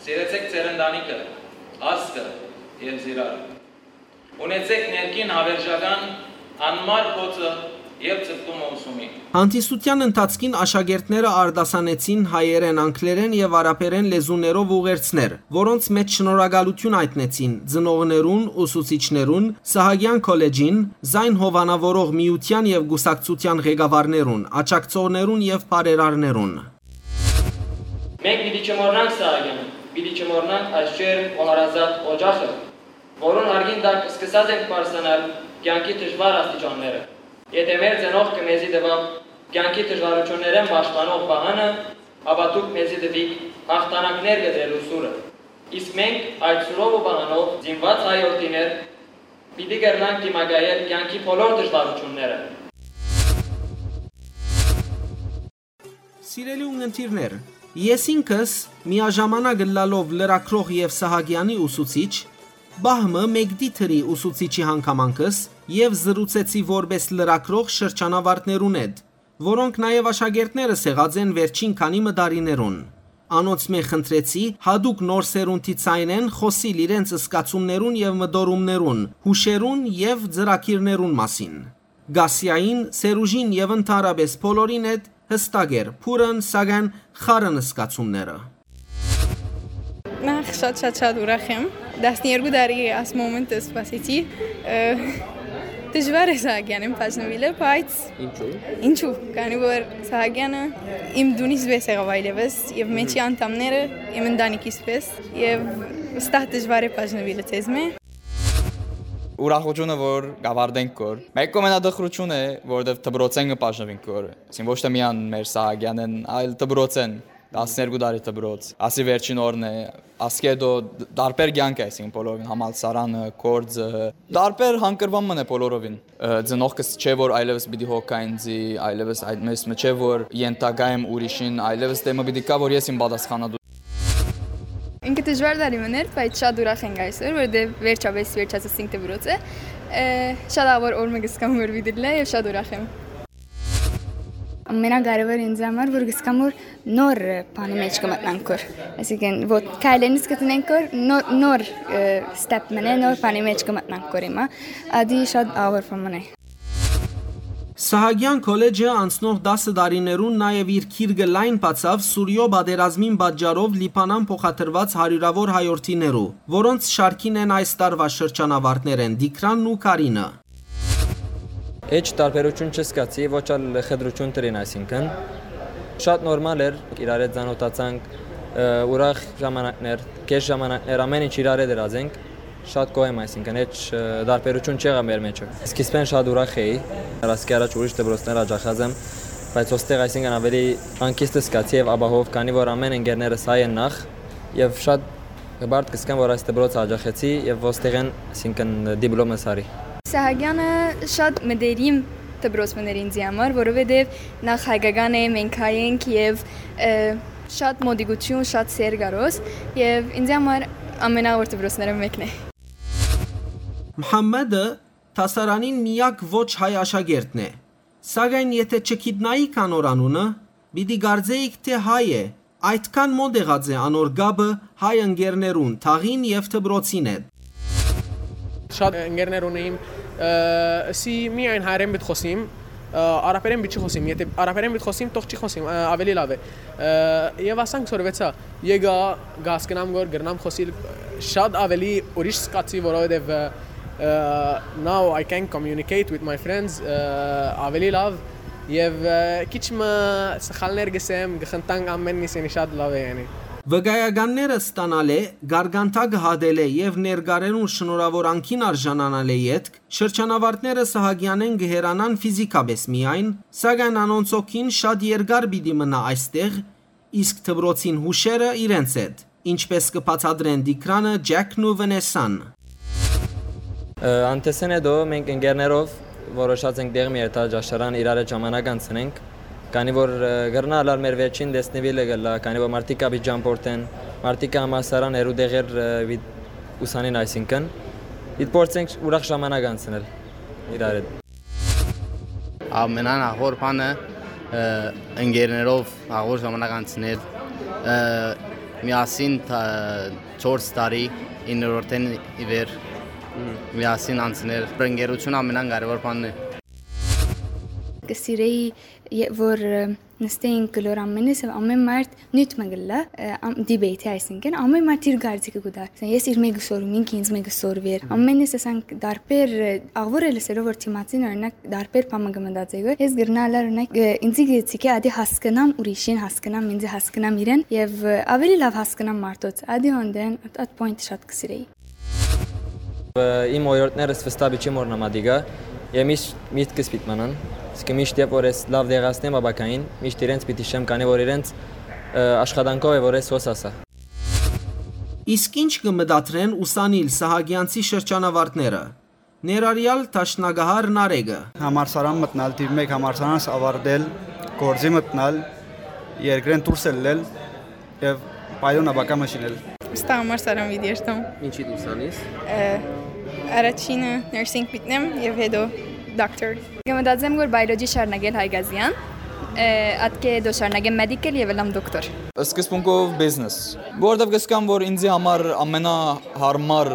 սիրեցեք ձեր ընտանիքը, ազգը եւ զիրարը։ Ունեցեք ներքին հավերժական անմար խոցը եւ ձգտումը ուսումի։ Հանդիսութեան ընթացքին աշակերտները արտասանեցին հայերէն, անգլերէն եւ արաբերէն լեզուներով ուղերձներ, որոնց մէջ շնորհակալութիւն հայտնեցին ծնողներուն, ուսուցիչներուն, Սահակեան քոլեջին, զայն հովանաւորող միութեան եւ կուսակցութեան ղեկավարներուն, աջակցողներուն եւ բարերարներուն։ Մենք պիտի չմոռնանք Սահակեան, պիտի չմոռնանք այս ջերմ ու հարազատ օջախը, որուն հարգին տակ սկսած ենք պարզանալ կեանքի դժվար աստիճանները։ Եթէ մեր ծնողքը մեզի տուաւ կեանքի դժվարութիւններէն պաշտպանող վահանը, ապա դուք մեզի տուիք յաղթանակներ կտրելու սուրը։ Իսկ մենք այդ սուրով ու վահանով զինված հայ որդիներ պիտի կրնանք դիմակայել կեանքի բոլոր դժվարութիւնները։ Սիրելի ունգընտիրներ, ես ինքս միաժամանակ ըլլալով լրագրող եւ Սահակեանի ուսուցիչ, պահ մը մեկդի թրի ուսուցիչի հանգամանքս եւ զրուցեցի որպես լրագրող շրջանավարտներուն հետ, որոնք նաեւ աշակերտներս եղած են վերջին քանի մը տարիներուն։ Անոնցմէ խնդրեցի յատուկ նոր սերունդի ձայնէն խօսիլ իրենց զգացումներուն եւ մտորումներուն, յուշերուն եւ ծրագիրներուն մասին։ Գասիային, Սերուժին եւ ընդհանրապէս բոլորին հետ յստակ էր, բուռն, սակայն խառն զգացումները։ Նախ շատ, շատ, շատ ուրախ եմ։ Տասներկու տարի այս մոմենտը սպասեցի։ Ը, Դժուար է Սահակեանէն բաժնուիլը, բայց ինչու՞։ Ինչու, քանի որ Սահակեանը իմ դունիս պէս եղաւ այլեւս, եւ մեջի անդամները իմ ընտանիքիս պէս, եւ վստահ դժուար է բաժնուիլը ձեզմէ։ Ուրախութիւնը որ կավարտենք կոր։ Մէկ կողմէն ատխրութիւն է, որովհետեւ դպրոցէն կը բաժնուինք կոր։ Այսինքն ոչ թե միայն մեր Սահակեանէն, այլ դպրոցէն, տասներկու տարի դպրոց, ասի վերջին օրն է, ասկէ դո դ-, տարբեր կեանք է, այսինքն բոլորովին համալսարանը, կորձը, տարբեր հանգրուան մն է բոլորովին։ Ը, ծնողքս չէ որ այլևս պիտի հոգա ինձի, այլևս այդ մեզ մը չէ որ ենթակայ եմ ուրիշին, այլևս դեմը պիտի կա որ ես իմ պատասխանատու։ Ինքը դժուար տարի մն էր, բայց շատ ուրախ ենք այսօր, որովհետեւ վերջապէս վերջացուցինք դպրոցը։ Ը, շատ աղոր օր մը կսկամ որ պիտի լա եւ շատ ուրախ եմ։ Ամենակարեւորը ինձ համար որ գսկամ որ նոր բանի մեջ կմտնանք կոր։ Այսինքն որ քայլերնից կտնենք կոր նոր, նոր, ը, step մնե, նոր բանի մեջ կմտնանք կոր հիմա։ Ադի շատ աղոր բան մնե։ Սահակեան քոլեջը անցնող տասը տարիներուն նաեւ իր քիրկը լայն բացաւ Սուրիոյ պատերազմին պատճառով Լիբանան փոխադրուած հարիւրաւոր հայորդիներու, որոնց շարքին են այս տարուայ շրջանավարտներէն Տիգրանն ու Կարինը։ Էջ տարբերութիւն չզգացի, ոչ ալ խտրութիւն տրին, այսինքն շատ նորմալ էր, իրար հետ ծանոթացանք, ը, ուրախ ժամանակներ, կես ժամանակներ, ամեն ինչ իրար հետ դրած ենք, շատ գոհ եմ, այսինքն էջ, ը, տարբերութիւն չեղա մեր մեջը։ Սկիզբէն շատ ուրախ էի, ասկի առաջ ուրիշ դպրոցներ աջախած եմ, բայց ոստեղ, այսինքն ավելի հանգիստ զգացի եւ ապահով, քանի որ ամեն ընկերներս հայ են նախ, եւ շատ հպարտ կսկամ, որ այս դպրոցը աջախեցի եւ ոստեղէն, այսինքն դիպլոմս արի։ Սահակեանը շատ մտերիմ դպրոց մներ ինձի համար, որովհետեւ նախ հայկական է, մենք հայ ենք եւ, ը, շատ մոտիկություն, շատ սեր գարոս եւ ինձի համար ամենաոր դպրոցները մեկն է։ Մհամմեդը դասարանին միակ ոչ հայ աշակերտն է, սակայն եթե չգիտնայիք անոր անունը, պիտի կարծէիք, թե հայ է, այդքան մոտ եղած է անոր կապը հայ ընկերներուն, թաղին եւ դպրոցին հետ։ Շատ ընկերներ ունեիմ, ը, սի միայն հայերեն պիտի խոսիմ, ը, արաբերեն պիտի չի խոսիմ, եթե արաբերեն պիտի խոսիմ, թող չի խոսիմ, ը, ավելի լավ է։ Ը, եւ ասանք սորվեցա, եկա, կհասկնամ որ կրնամ խոսիլ շատ ավելի ուրիշ զգացի, որովհետեւ, ը, ը, now I can communicate with my friends, ը, ավելի լավ, եւ, ը, քիչ մը սխալներ գսեմ, գխնդանք ամեն միս, յանի շատ լավ է, յանի։ Վկայականները ստանալէ, գարգանթա կը հատելէ եւ ներկարերուն շնորհաւոր անկին արժանանալէ ետք, շրջանավարտները Սահակեանէն կը հեռանան ֆիզիքապէս միայն, սակայն անոնց հոգին շատ երկար պիտի մնայ այստեղ, իսկ դպրոցին յուշերը իրենց հետ, ինչպես կը բացատրեն Տիգրանը, Ջեքն ու Վնեսան։ Ը, անթեսեն հետո մենք ընկերներով որոշած ենք դեղի մի երթալ ճաշարան իրար հետ ժամանակ անցնենք, քանի որ, ը, կրնա ըլլալ մեր վերջին տեսնիվիլը կլա, քանի որ մարդիկ կապի ճամփորդեն, մարդիկ կը համալսարան հեռու տեղեր, ը, վիդ-, ուսանին այսինքն, իդ փորձենք ուրախ ժամանակ անցնել իրար հետ։ Ամենան ահոր բանը, ը, ընկերներով ահոր ժամանակ անցնել, ը, միասին թա-, չորս տարի, իններորդեն ի վեր, միասին անցնել։ Ընկերություն ամենան կարևոր բանն է։ Կը սիրեի, ե-, որ, ը, նստեինք գլոր ամենս, ամեն մարդ նիւթ մը գլա, ը, ամ-, դիբեյթի, այսինքն, ամեն մարդ իր կարծիքը կու տար։ Ես իր մեկը սորում, ինքը ինձ մեկը սորվեր։ Ամենս ասանք դարբեր, ը, աղվոր է լսելով որ թիմացին, օրինակ, դարբեր բան մը կը մտածի, ես գրնա ալար, օրինակ, ը, ինձի գցի կը ադի հասկնամ ուրիշին, հասկնամ ինձի, հասկնամ իրեն, եւ, ը, ավելի լավ հասկնամ մարդոց։ Ադի հոնդեն, at, at point շատ կսիրեի։ Ը, իմ օրիորդներս վստահ չի մոռնամ ադիգա, եւ միշտ միտքս պիտի մնան։ Իսկ միշտ երբ որ ես լավ դեղացնեմ ապագային, միշտ իրենց պիտի շեմ, քանի որ իրենց, ը, աշխատանքով է որ ես հոս ասա։ Իսկ ինչ կը մտադրեն ուսանիլ Սահակեանցի շրջանավարտները, ներառյալ դաշնակահար Նարեկը։ Համալսարան մտնալ, թիվ մեկ համալսարանս ավարտել, գործի մտնալ, երկրէն դուրս ելլել եւ պայլուն ապագա մը շինել։ Ստա համար սարան վիդի երթամ։ Ինչի դուրս անիս։ Ը, առաջինը nursing մտնեմ եւ հետո doctor։ Կմտածեմ որ biology շարունակել Հայկազյան, ը, ատկե հետո շարունակեմ medical եւ ըլլամ դոկտոր։ Սկզբունքով business, որովհետեւ կսկամ որ ինձի համար ամենահարմար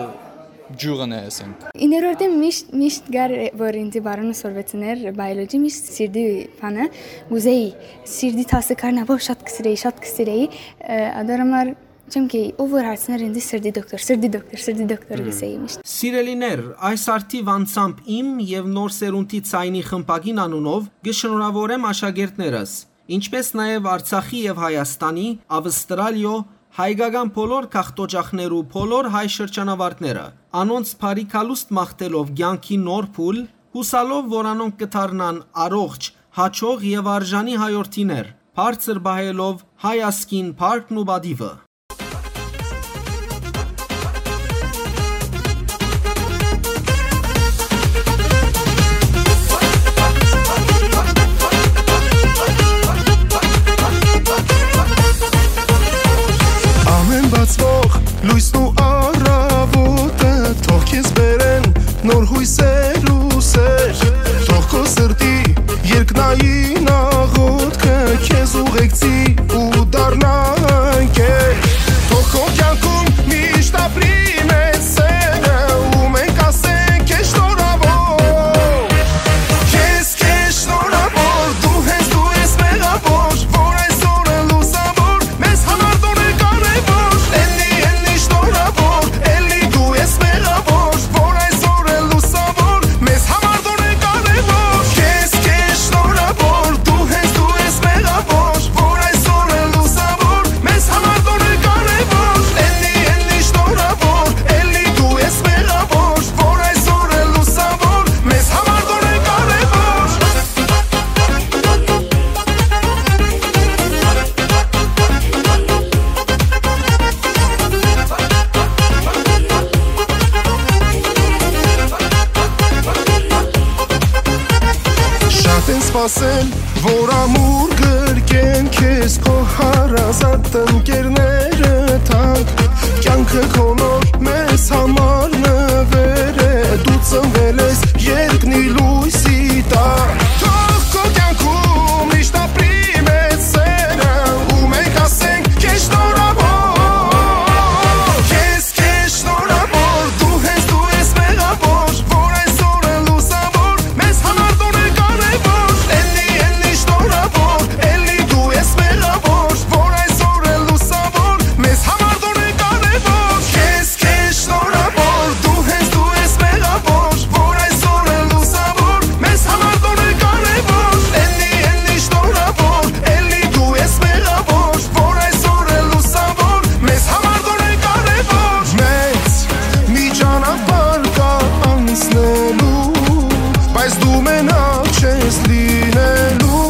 ջուղն է, ասենք։ Իներորդեմ միշտ, միշտ գար որ ինձի բարոնը սորվեցներ biology, միշտ սիրդի բանը, կուզեի, սիրդի դասը կար, նավով շատ կսիրեի, շատ կսիրեի, ը, ադար համար Չեմ գեի, ով որ հարցներ ինձ, սրտի դոկտոր, սրտի դոկտոր, սրտի դոկտոր գսեի միշտ։ Սիրելիներ, այս արդիւ անցամբ իմ եւ Նոր Սերունդի Ցայնի խմբակին անունով կշնորհաւորեմ աշակերտներս, ինչպէս նաեւ Արցախի եւ Հայաստանի, Ավստրալիոյ, հայկական բոլոր գաղթօճախներու բոլոր հայ շրջանավարտները, անոնց բարի գալուստ մաղթելով կեանքի նոր փուլ, յուսալով որ անոնք կը դառնան առողջ, հաճող եւ արժանի հայորդիներ, բարձր պահելով հայ ազգին փառքն ու պատիւը։ Ամէն բացուող լոյսն ու առաւօտը թող քեզ բերեն նոր յոյսեր ու սեր, թող քո սրտի երկնային աղոթքը քեզ ուղեկցի ու դառնա ընկեր։ Թող քո կեանքում միշտ ապրի մեծ սերը, ու մենք ասենք քեզ շնորհաւոր։ Քեզ, քեզ շնորհաւոր, դու հենց դու ես մեղավոր, որ այսօր է լուսավոր, մեզ համար դու ես կարևոր։ Էլի, էլի շնորհաւոր, էլի դու ես մեղավոր, որ այսօր է լուսավոր, մեզ համար դու ես կարևոր։ Քեզ, քեզ շնորհաւոր, դու հենց դու ես մեղավոր, որ այսօր է լուսավոր, մեզ համար դու ես կարևոր։ Էլի, էլի շնորհաւոր, էլի դու ես մեղավոր, որ այսօր է լուսավոր, մեզ համար դու ես կարևոր։ Շատ են սպասել, որ ամուր գրկեն քեզ քո հարազատ ընկերները թանկ։ Կյանքը քո նոր մեզ համար նվեր է, դու ծնվել ես երկնի լույսի տակ։ Թող քո կյանքում միշտ ապրի մեծ սերը, ու մենք ասենք քեզ շնորհաւոր։ Քեզ, քեզ շնորհաւոր, դու հենց դու ես մեղավոր, որ այսօր է լուսավոր, մեզ համար դու ես կարևոր։ Էլի, էլի շնորհաւոր, էլի դու ես մեղավոր, որ այսօր է լուսավոր, մեզ համար դու ես կարևոր։ Քեզ, քեզ շնորհաւոր, դու հենց դու ես մեղավոր, որ այսօր է լուսավոր, մեզ համար դու ես կարևոր։ Էլի, էլի շնորհաւոր, էլի դու ես մեղավոր, որ այսօր է լուսավոր, մեզ համար դու ես կարևոր։ Մեծ մի ճանապարհ կա անցնելու, բայց դու մենակ չես լինելու։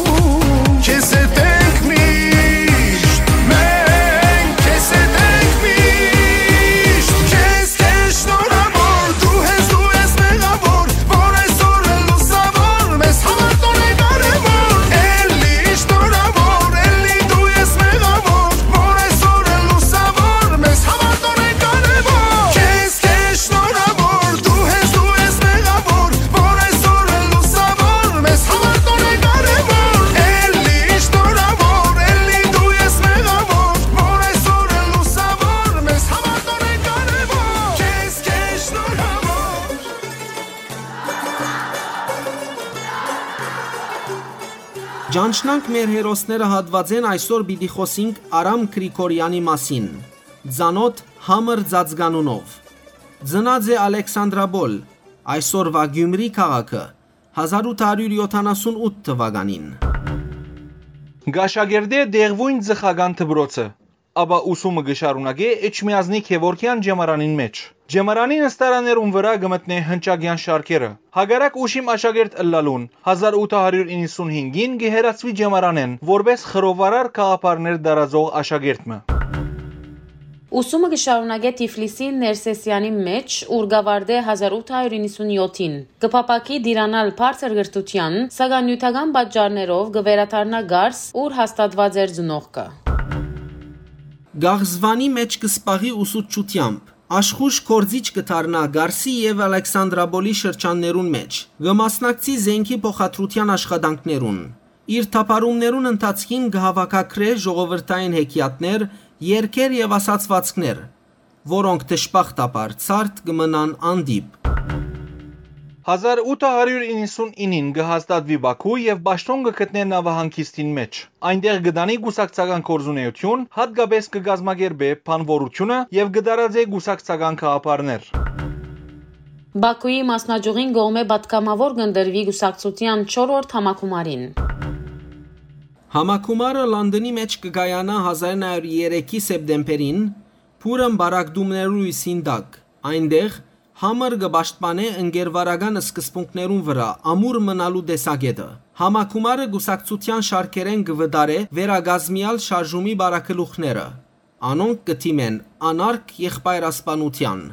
Քեզ հետ ենք միշտ, մենք քեզ հետ ենք միշտ։ Քեզ, քեզ շնորհաւոր, դու ես, դու ես մեղավոր, որ այսօր է լուսավոր, մեզ համար դու ես կարևոր։ Էլի շնորհաւոր, էլի դու ես մեղավոր, որ այսօր է լուսավոր, մեզ համար դու ես կարևոր։ Քեզ, քեզ շնորհաւոր, դու ես, դու ես մեղավոր, որ այսօր է լուսավոր, մեզ համար դու ես կարևոր։ Էլի շնորհաւոր, էլի դու ես մեղավոր, որ այսօր է լուսավոր, մեզ համար դու ես կարևոր։ Քեզ, քեզ շնորհաւոր։ Ճանչնանք մեր հերոսները հատուածէն այսօր պիտի խօսինք Արամ Գրիգորեանի մասին։ Ծանօթ համր ծածկանունով։ Ծնած է Ալեքսանդրապոլ, այսօրուա Գիումրի քաղաքը, հազար ութ հարիւր յոթանասուն ութ թուականին։ Կ'աշակերտէ տեղւոյն ծխական դպրոցը, ապա ուսումը կը շարունակէ Էջմիածնի Գեւորգեան ճեմարանին մէջ։ Ճեմարանի նստարաններուն վրայ կը մտնէ հնչակեան շարքերը։ Հակառակ ուշիմ աշակերտ ըլլալուն, հազար ութ հարիւր իննսուն հինգին կը հեռացուի ճեմարանէն, որպէս խռովարար գաղափարներ տարածող աշակերտ մը։ Ուսումը կը շարունակէ Թիֆլիսի Ներսեսեանի մէջ, ուր կ'աւարտէ հազար ութ հարիւր իննսուն յոթին։ Կը փափաքի տիրանալ բարձր կրթութեան, սակայն նիւթական պատճառներով կը վերադառնայ Կարս, ուր հաստատուած էր ծնողքը։ Գաղզվանի մէջ կը սպաղի ուսուցչութեամբ։ Աշխոյժ գործիչ կը դառնայ Կարսի եւ Ալեքսանդրապոլի շրջաններուն մէջ։ Կը մասնակցի զէնքի փոխադրութեան աշխատանքներուն։ Իր թափառումներուն ընթացքին կը հաւաքագրէ ժողովրդային հեքիաթներ, երգեր եւ ասացուածքներ, որոնք դժբախտաբար ցարդ կը մնան անդիպ։ Հազար ութը հարիւր իննսուն իննին կը հաստատուի Պաքու եւ պաշտօն կը գտնէ նաւահանգիստին մէջ։ Այնտեղ կը տանի կուսակցական գործունէութիւն, յատկապէս կը կազմակերպէ բանուորութիւնը եւ կը տարածէ կուսակցական գաղափարներ։ Պաքուի մասնաճիւղին կողմէ պատգամաւոր կ'ընտրուի կուսակցութեան չորրորդ համագումարին։ Համագումարը Լոնդոնի մէջ կը կայանայ հազար իննսուն երեքի սեպտեմբերին, փուռն պառակտումներու լոյսին տակ։ Այնտեղ Համըր կը պաշտպանէ ընկերվարական սկզբունքներուն վրայ ամուր մնալու տեսակէտը։ Համագումարը կուսակցութեան շարքերէն կը վտարէ վերակազմեալ շարժումի պարագլուխները։ Անոնք կը դիմեն անարգ եղբայրասպանութեան։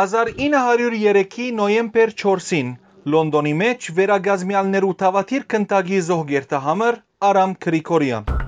Հազար ինը հարիւր երեքի նոյեմբեր չորսին Լոնդոնի մէջ վերակազմեալներու դաւադիր գնդակի զոհկերտը Համըր Արամ Գրիգորեան։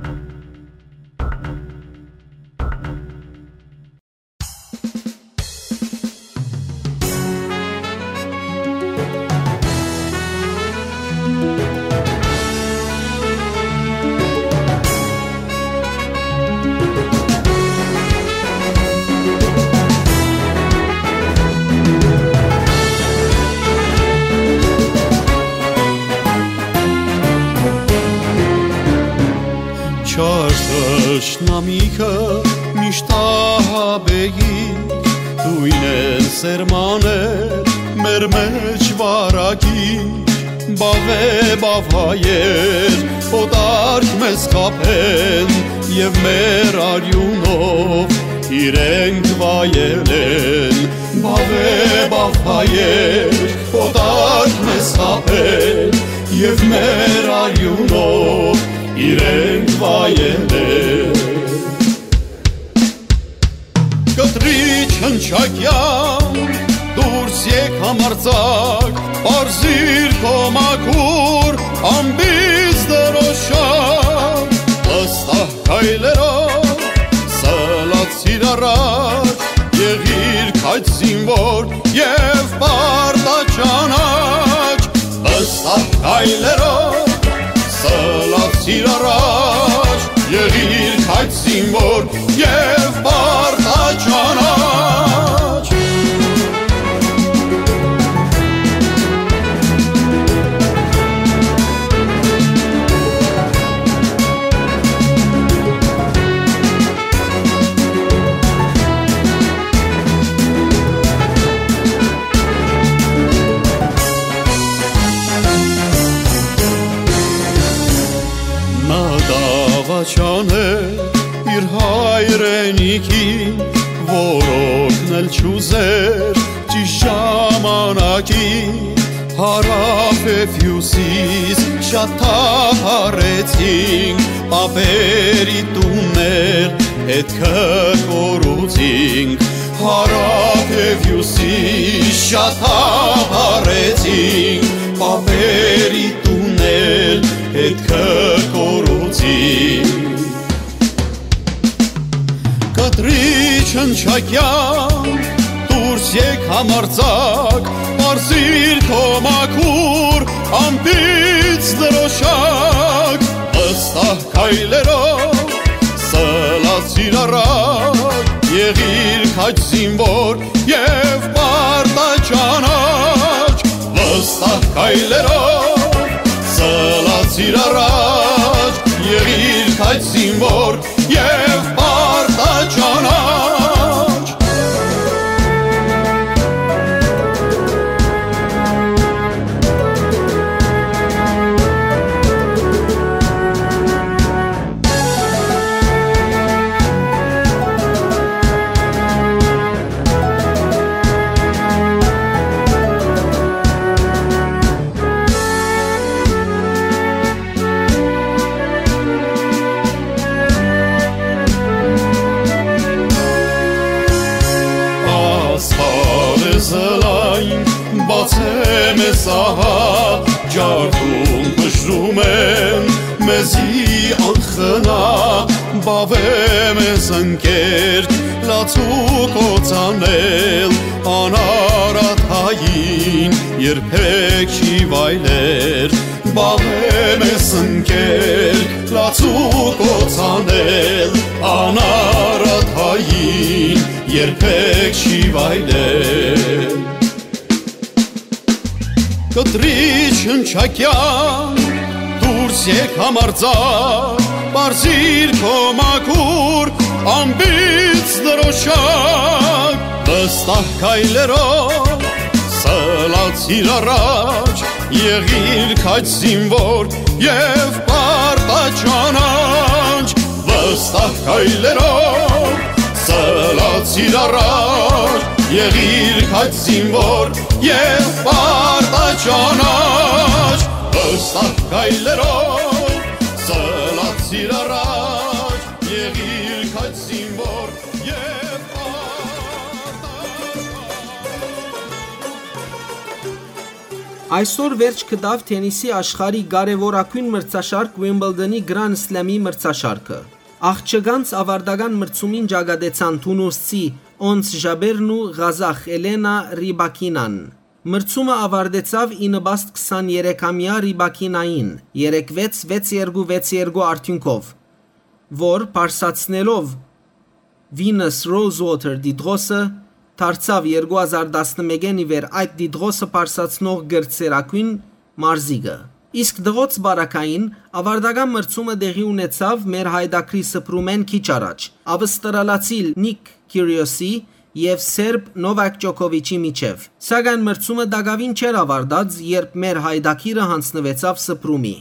Չար թշնամիքը միշտ ահաբեի, դոյնեն սերմաներ մեր մէջ վարակի, բաւէ բաւայեր օտարք մեզ խաբեն, եւ մեր արիւնով իրենք վայելեն, բաւէ բաւայեր օտարք մեզ խաբեն, եւ մեր արիւնով իրենք վայելեն։ Կտրիչ հնչակեան, դուրս եկ համարձակ, պարզիր քո մաքուր ամպից դրոշակ, վստահ քայլերով սլացիր առաջ, եղիր քաջ զինվոր եւ պարտաճանաչ, վստահ քայլերով սլացիր առաջ, եղիր քաջ զինվոր եւ պարտաճանաչ։ Նա դաւաճան է իր հայրենիքին, որ օգնել չուզեր ճիշտ ժամանակին։ Հարաւ եւ հիւսիս շատ թափառեցինք, պապերի տուններ ետքը կորուցինք։ Հարաւ եւ հիւսիս շատ թափառեցինք, պապերի տուններ ետքը կորուցինք։ Կտրիչ հնչակեան, դուրս եկ համարձակ, պարզիր քո մաքուր ամպից դրոշակ, վստահ քայլերով սլացիր առաջ, եղիր քաջ զինվոր եւ պարտաճանաչ, վստահ քայլերով սլացիր առաջ, եղիր քաջ զինվոր եւ պարտաճանաչ։ Աստղ է զլայն, բաց է մեզ ահա, ջարդում բժրում են մեզի անխնա, բաւէ մեզ ընկեր, լացու կործանել, անարատ հային երբեք չի վայլեր, բաւէ մեզ ընկեր, լացու կործանել, անարատ հային երբեք չի վայլեր։ Կտրիչ հնչակեան, դուրս եկ համարձակ, պարզիր քո մաքուր ամպից դրոշակ, վստահ քայլերով սլացիր առաջ, եղիր քաջ զինվոր եւ պարտաճանաչ, վստահ քայլերով սլացիր առաջ, եղիր քաջ զինվոր եւ պարտաճանաչ, վստահ քայլերով սլացիր առաջ, եղիր քաջ զինվոր եւ պարտաճանաչ։ Այսօր վերջ գտաւ թենիսի աշխարհի կարեւորագոյն մրցաշարք Wimbledon-ի Grand Slam-ի մրցաշարքը։ Աղջկանց աւարտական մրցումին ճակատեցան թունուսցի Օնս Ժաբերն ու ղազախ Էլենա Ռիբակինան։ Մրցումը աւարտեցաւ ի նպաստ քսաներեքամեայ Ռիբակինային՝ երեք վեց, վեց երկու, վեց երկու արդիւնքով, որ պարսացնելով Venus Rosewater տիտղոսը, դարձաւ երկու հազար տասնմէկէն ի վեր այդ տիտղոսը պարսացնող կրտսերագոյն մարզիկը։ Իսկ դղոց պարագային աւարտական մրցումը տեղի ունեցաւ մեր հայդակրի սփռումէն քիչ առաջ, ավստրալացի Նիք Քիրիոսի եւ սերբ Նովակ Ջոկովիչի միջեւ, սակայն մրցումը տակաւին չէր աւարտած, երբ մեր հայդակիրը յանձնուեցաւ սփռումի։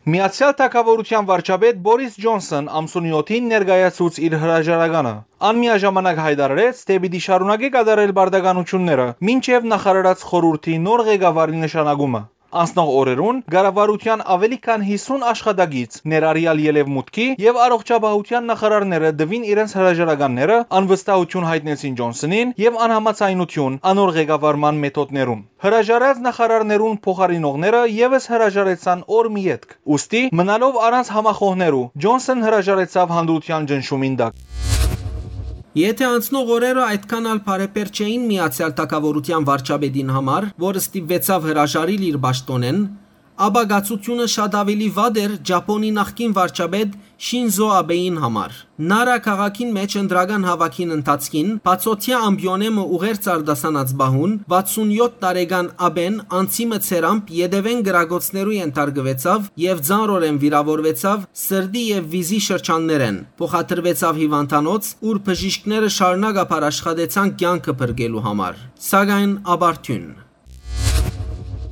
Միացեալ Թագաւորութեան վարչապետ Բորիս Ջոնսոն ամսունի յոթին ներկայացուց իր հրաժարականը։ Ան միաժամանակ յայտարարեց, թէ պիտի շարունակէ կատարել պարտականութիւնները մինչեւ նախարարաց խորհուրդի նոր ղեկավարի նշանակումը։ Անցնող օրերուն կառավարութեան աւելի քան հիսուն աշխատակից, ներառեալ ելեւմուտքի եւ առողջապահութեան նախարարները, տուին իրենց հրաժարականները, անվստահութիւն յայտնեցին Ջոնսոնին եւ անհամաձայնութիւն անոր ղեկավարման մեթոդներուն։ Հրաժարած նախարարներուն փոխարինողները եւս հրաժարեցան օր մը ետք։ Ուստի, մնալով առանց համախոհներու, Ջոնսոն հրաժարեցաւ հանդրութեան ճնշումին տակ։ Եթէ անցնող օրերը այդքան ալ բարեբեր չէին Միացեալ Թագաւորութեան վարչապետին համար, որ ստիպուեցաւ հրաժարիլ իր պաշտօնէն, ապա կացութիւնը շատ աւելի վատ էր Ճապոնի նախկին վարչապետ Շինզո Աբեին համար։ Նարա քաղաքին մէջ ընտրական հաւաքին ընթացքին, բացօթեայ ամպիոնէ մը ուղերձ արտասանած պահուն, վաթսուն յոթ տարեկան Աբեն անցի մը ցերամփ ետեւէն կրակոցներու ենթարկուեցաւ եւ ծանրօրէն վիրաւորուեցաւ սրտի եւ վիզի շրջաններէն, փոխադրուեցաւ հիւանդանոց, ուր բժիշկները շարունակաբար աշխատեցան կեանքը փրկելու համար, սակայն ապարդիւն։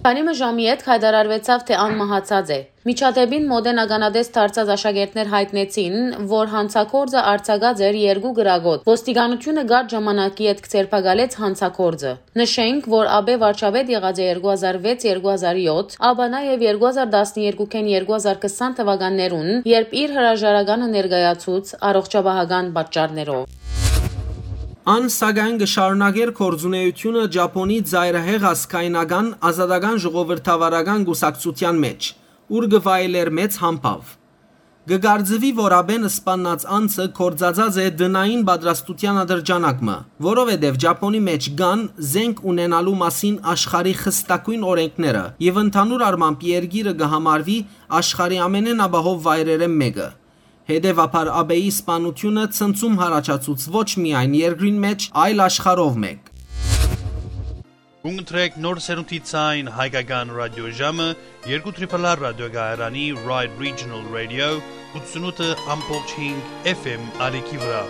Քանի մը ժամի ետք յայտարարուեցաւ, թէ ան մահացած է։ Միջադէպին մօտէն ականատես դարձած աշակերտներ յայտնեցին, որ յանցագործը արձակած էր երկու կրակոց։ Ոստիկանութիւնը կարճ ժամանակի ետք ձերբակալեց յանցագործը։ Նշենք, որ Աբէ վարչապետ եղած է երկու հազար վեց երկու հազար յոթ, ապա նաեւ երկու հազար տասներկուքէն երկու հազար քսան թվականներուն, երբ իր հրաժարականը ներկայացուց առողջապահական պատճառներով։ Ան, սակայն, կը շարունակէր գործունէութիւնը Ճապոնի ծայրահեղ ազգայնական ազատական ժողովրդավարական կուսակցութեան մէջ, ուր կը վայելէր մեծ համբաւ։ Կը կարծուի, որ Աբեն սպաննած անձը գործածած է տնային պատրաստութեան ատրճանակ մը, որովհետեւ Ճապոնի մէջ կան զենք ունենալու մասին աշխարհի խստագոյն օրէնքները եւ ընդհանուր առմամբ երկիրը կը համարուի աշխարհի ամենէն ապահով վայրերէն մէկը։ Հետեւաբար Աբեի սպանութիւնը ցնցում յառաջացուց ոչ միայն երկրին մէջ, այլ աշխարհով մէկ։ Կընտրեք նոր սերունդի ցայն հայկական ռադիոժամը երկու Triple R ռադիոկայարանի Ride Regional Radio ութսունութ F M ալիքի վրայ։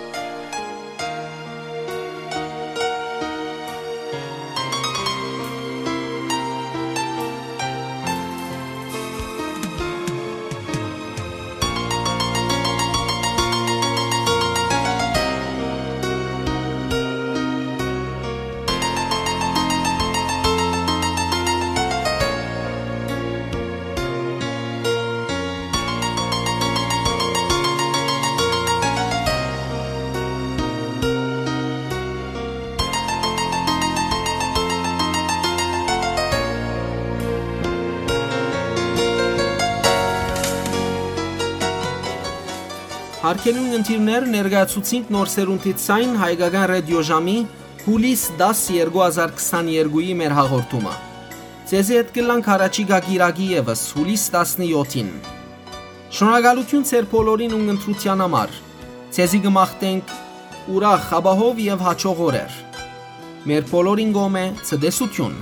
Հարգելի ունգընտիրներ, ներկայացուցինք նոր սերունդի ցայն հայկական ռադիոժամի հուլիս տաս երկու հազար քսաներկուի մեր հաղորդումը։ Ձեզի հետ կլանք առաջիկա կիրակի եւս, հուլիս տասնյոթին։ Շնորհակալութիւն ձեր բոլորին ունգընտրութեան համար։ Ձեզի կը մաղթենք ուրախ, ապահով եւ հաճող օրեր։ Մեր բոլորին կողմէ ցտեսութիւն։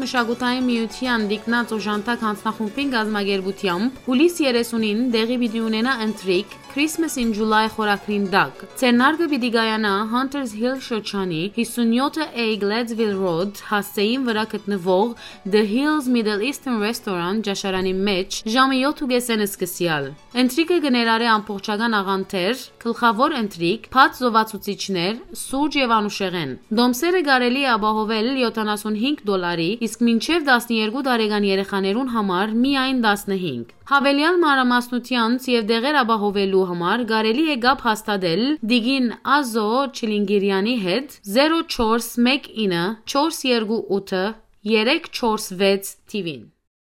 Մշակութային միութեան Տիկնած օժանդակ յանձնախումբին կազմակերպութեամբ հուլիս երեսունին տեղի պիտի ունենայ ընթրիք Christmas in July խորագրին տակ։ Ձեռնարկը պիտի կայանայ Hunters Hill շրջանի հիսունյոթ A Gladesville Road հասցէին վրայ գտնուող The Hills Middle Eastern Restaurant ճաշարանի մէջ ժամը յոթ ու կեսէն սկսեալ։ Ընթրիքը կը ներառէ ամբողջական աղանդեր, գլխաւոր ընթրիք, բաց զովացուցիչներ, սուրճ եւ անուշեղէն։ Տոմսերը կարելի է ապահովել յոթանասունհինգ դոլարի, իսկ մինչեւ տասներկու տարեկան երեխաներուն համար միայն տասնհինգ։ Յաւելեալ մանրամասնութեանց եւ տեղեր ապահովելու համար կարելի է կապ հաստատել տիկին Ազո Չիլինգիրեանի հետ, zero four one nine four two eight four six թիւին։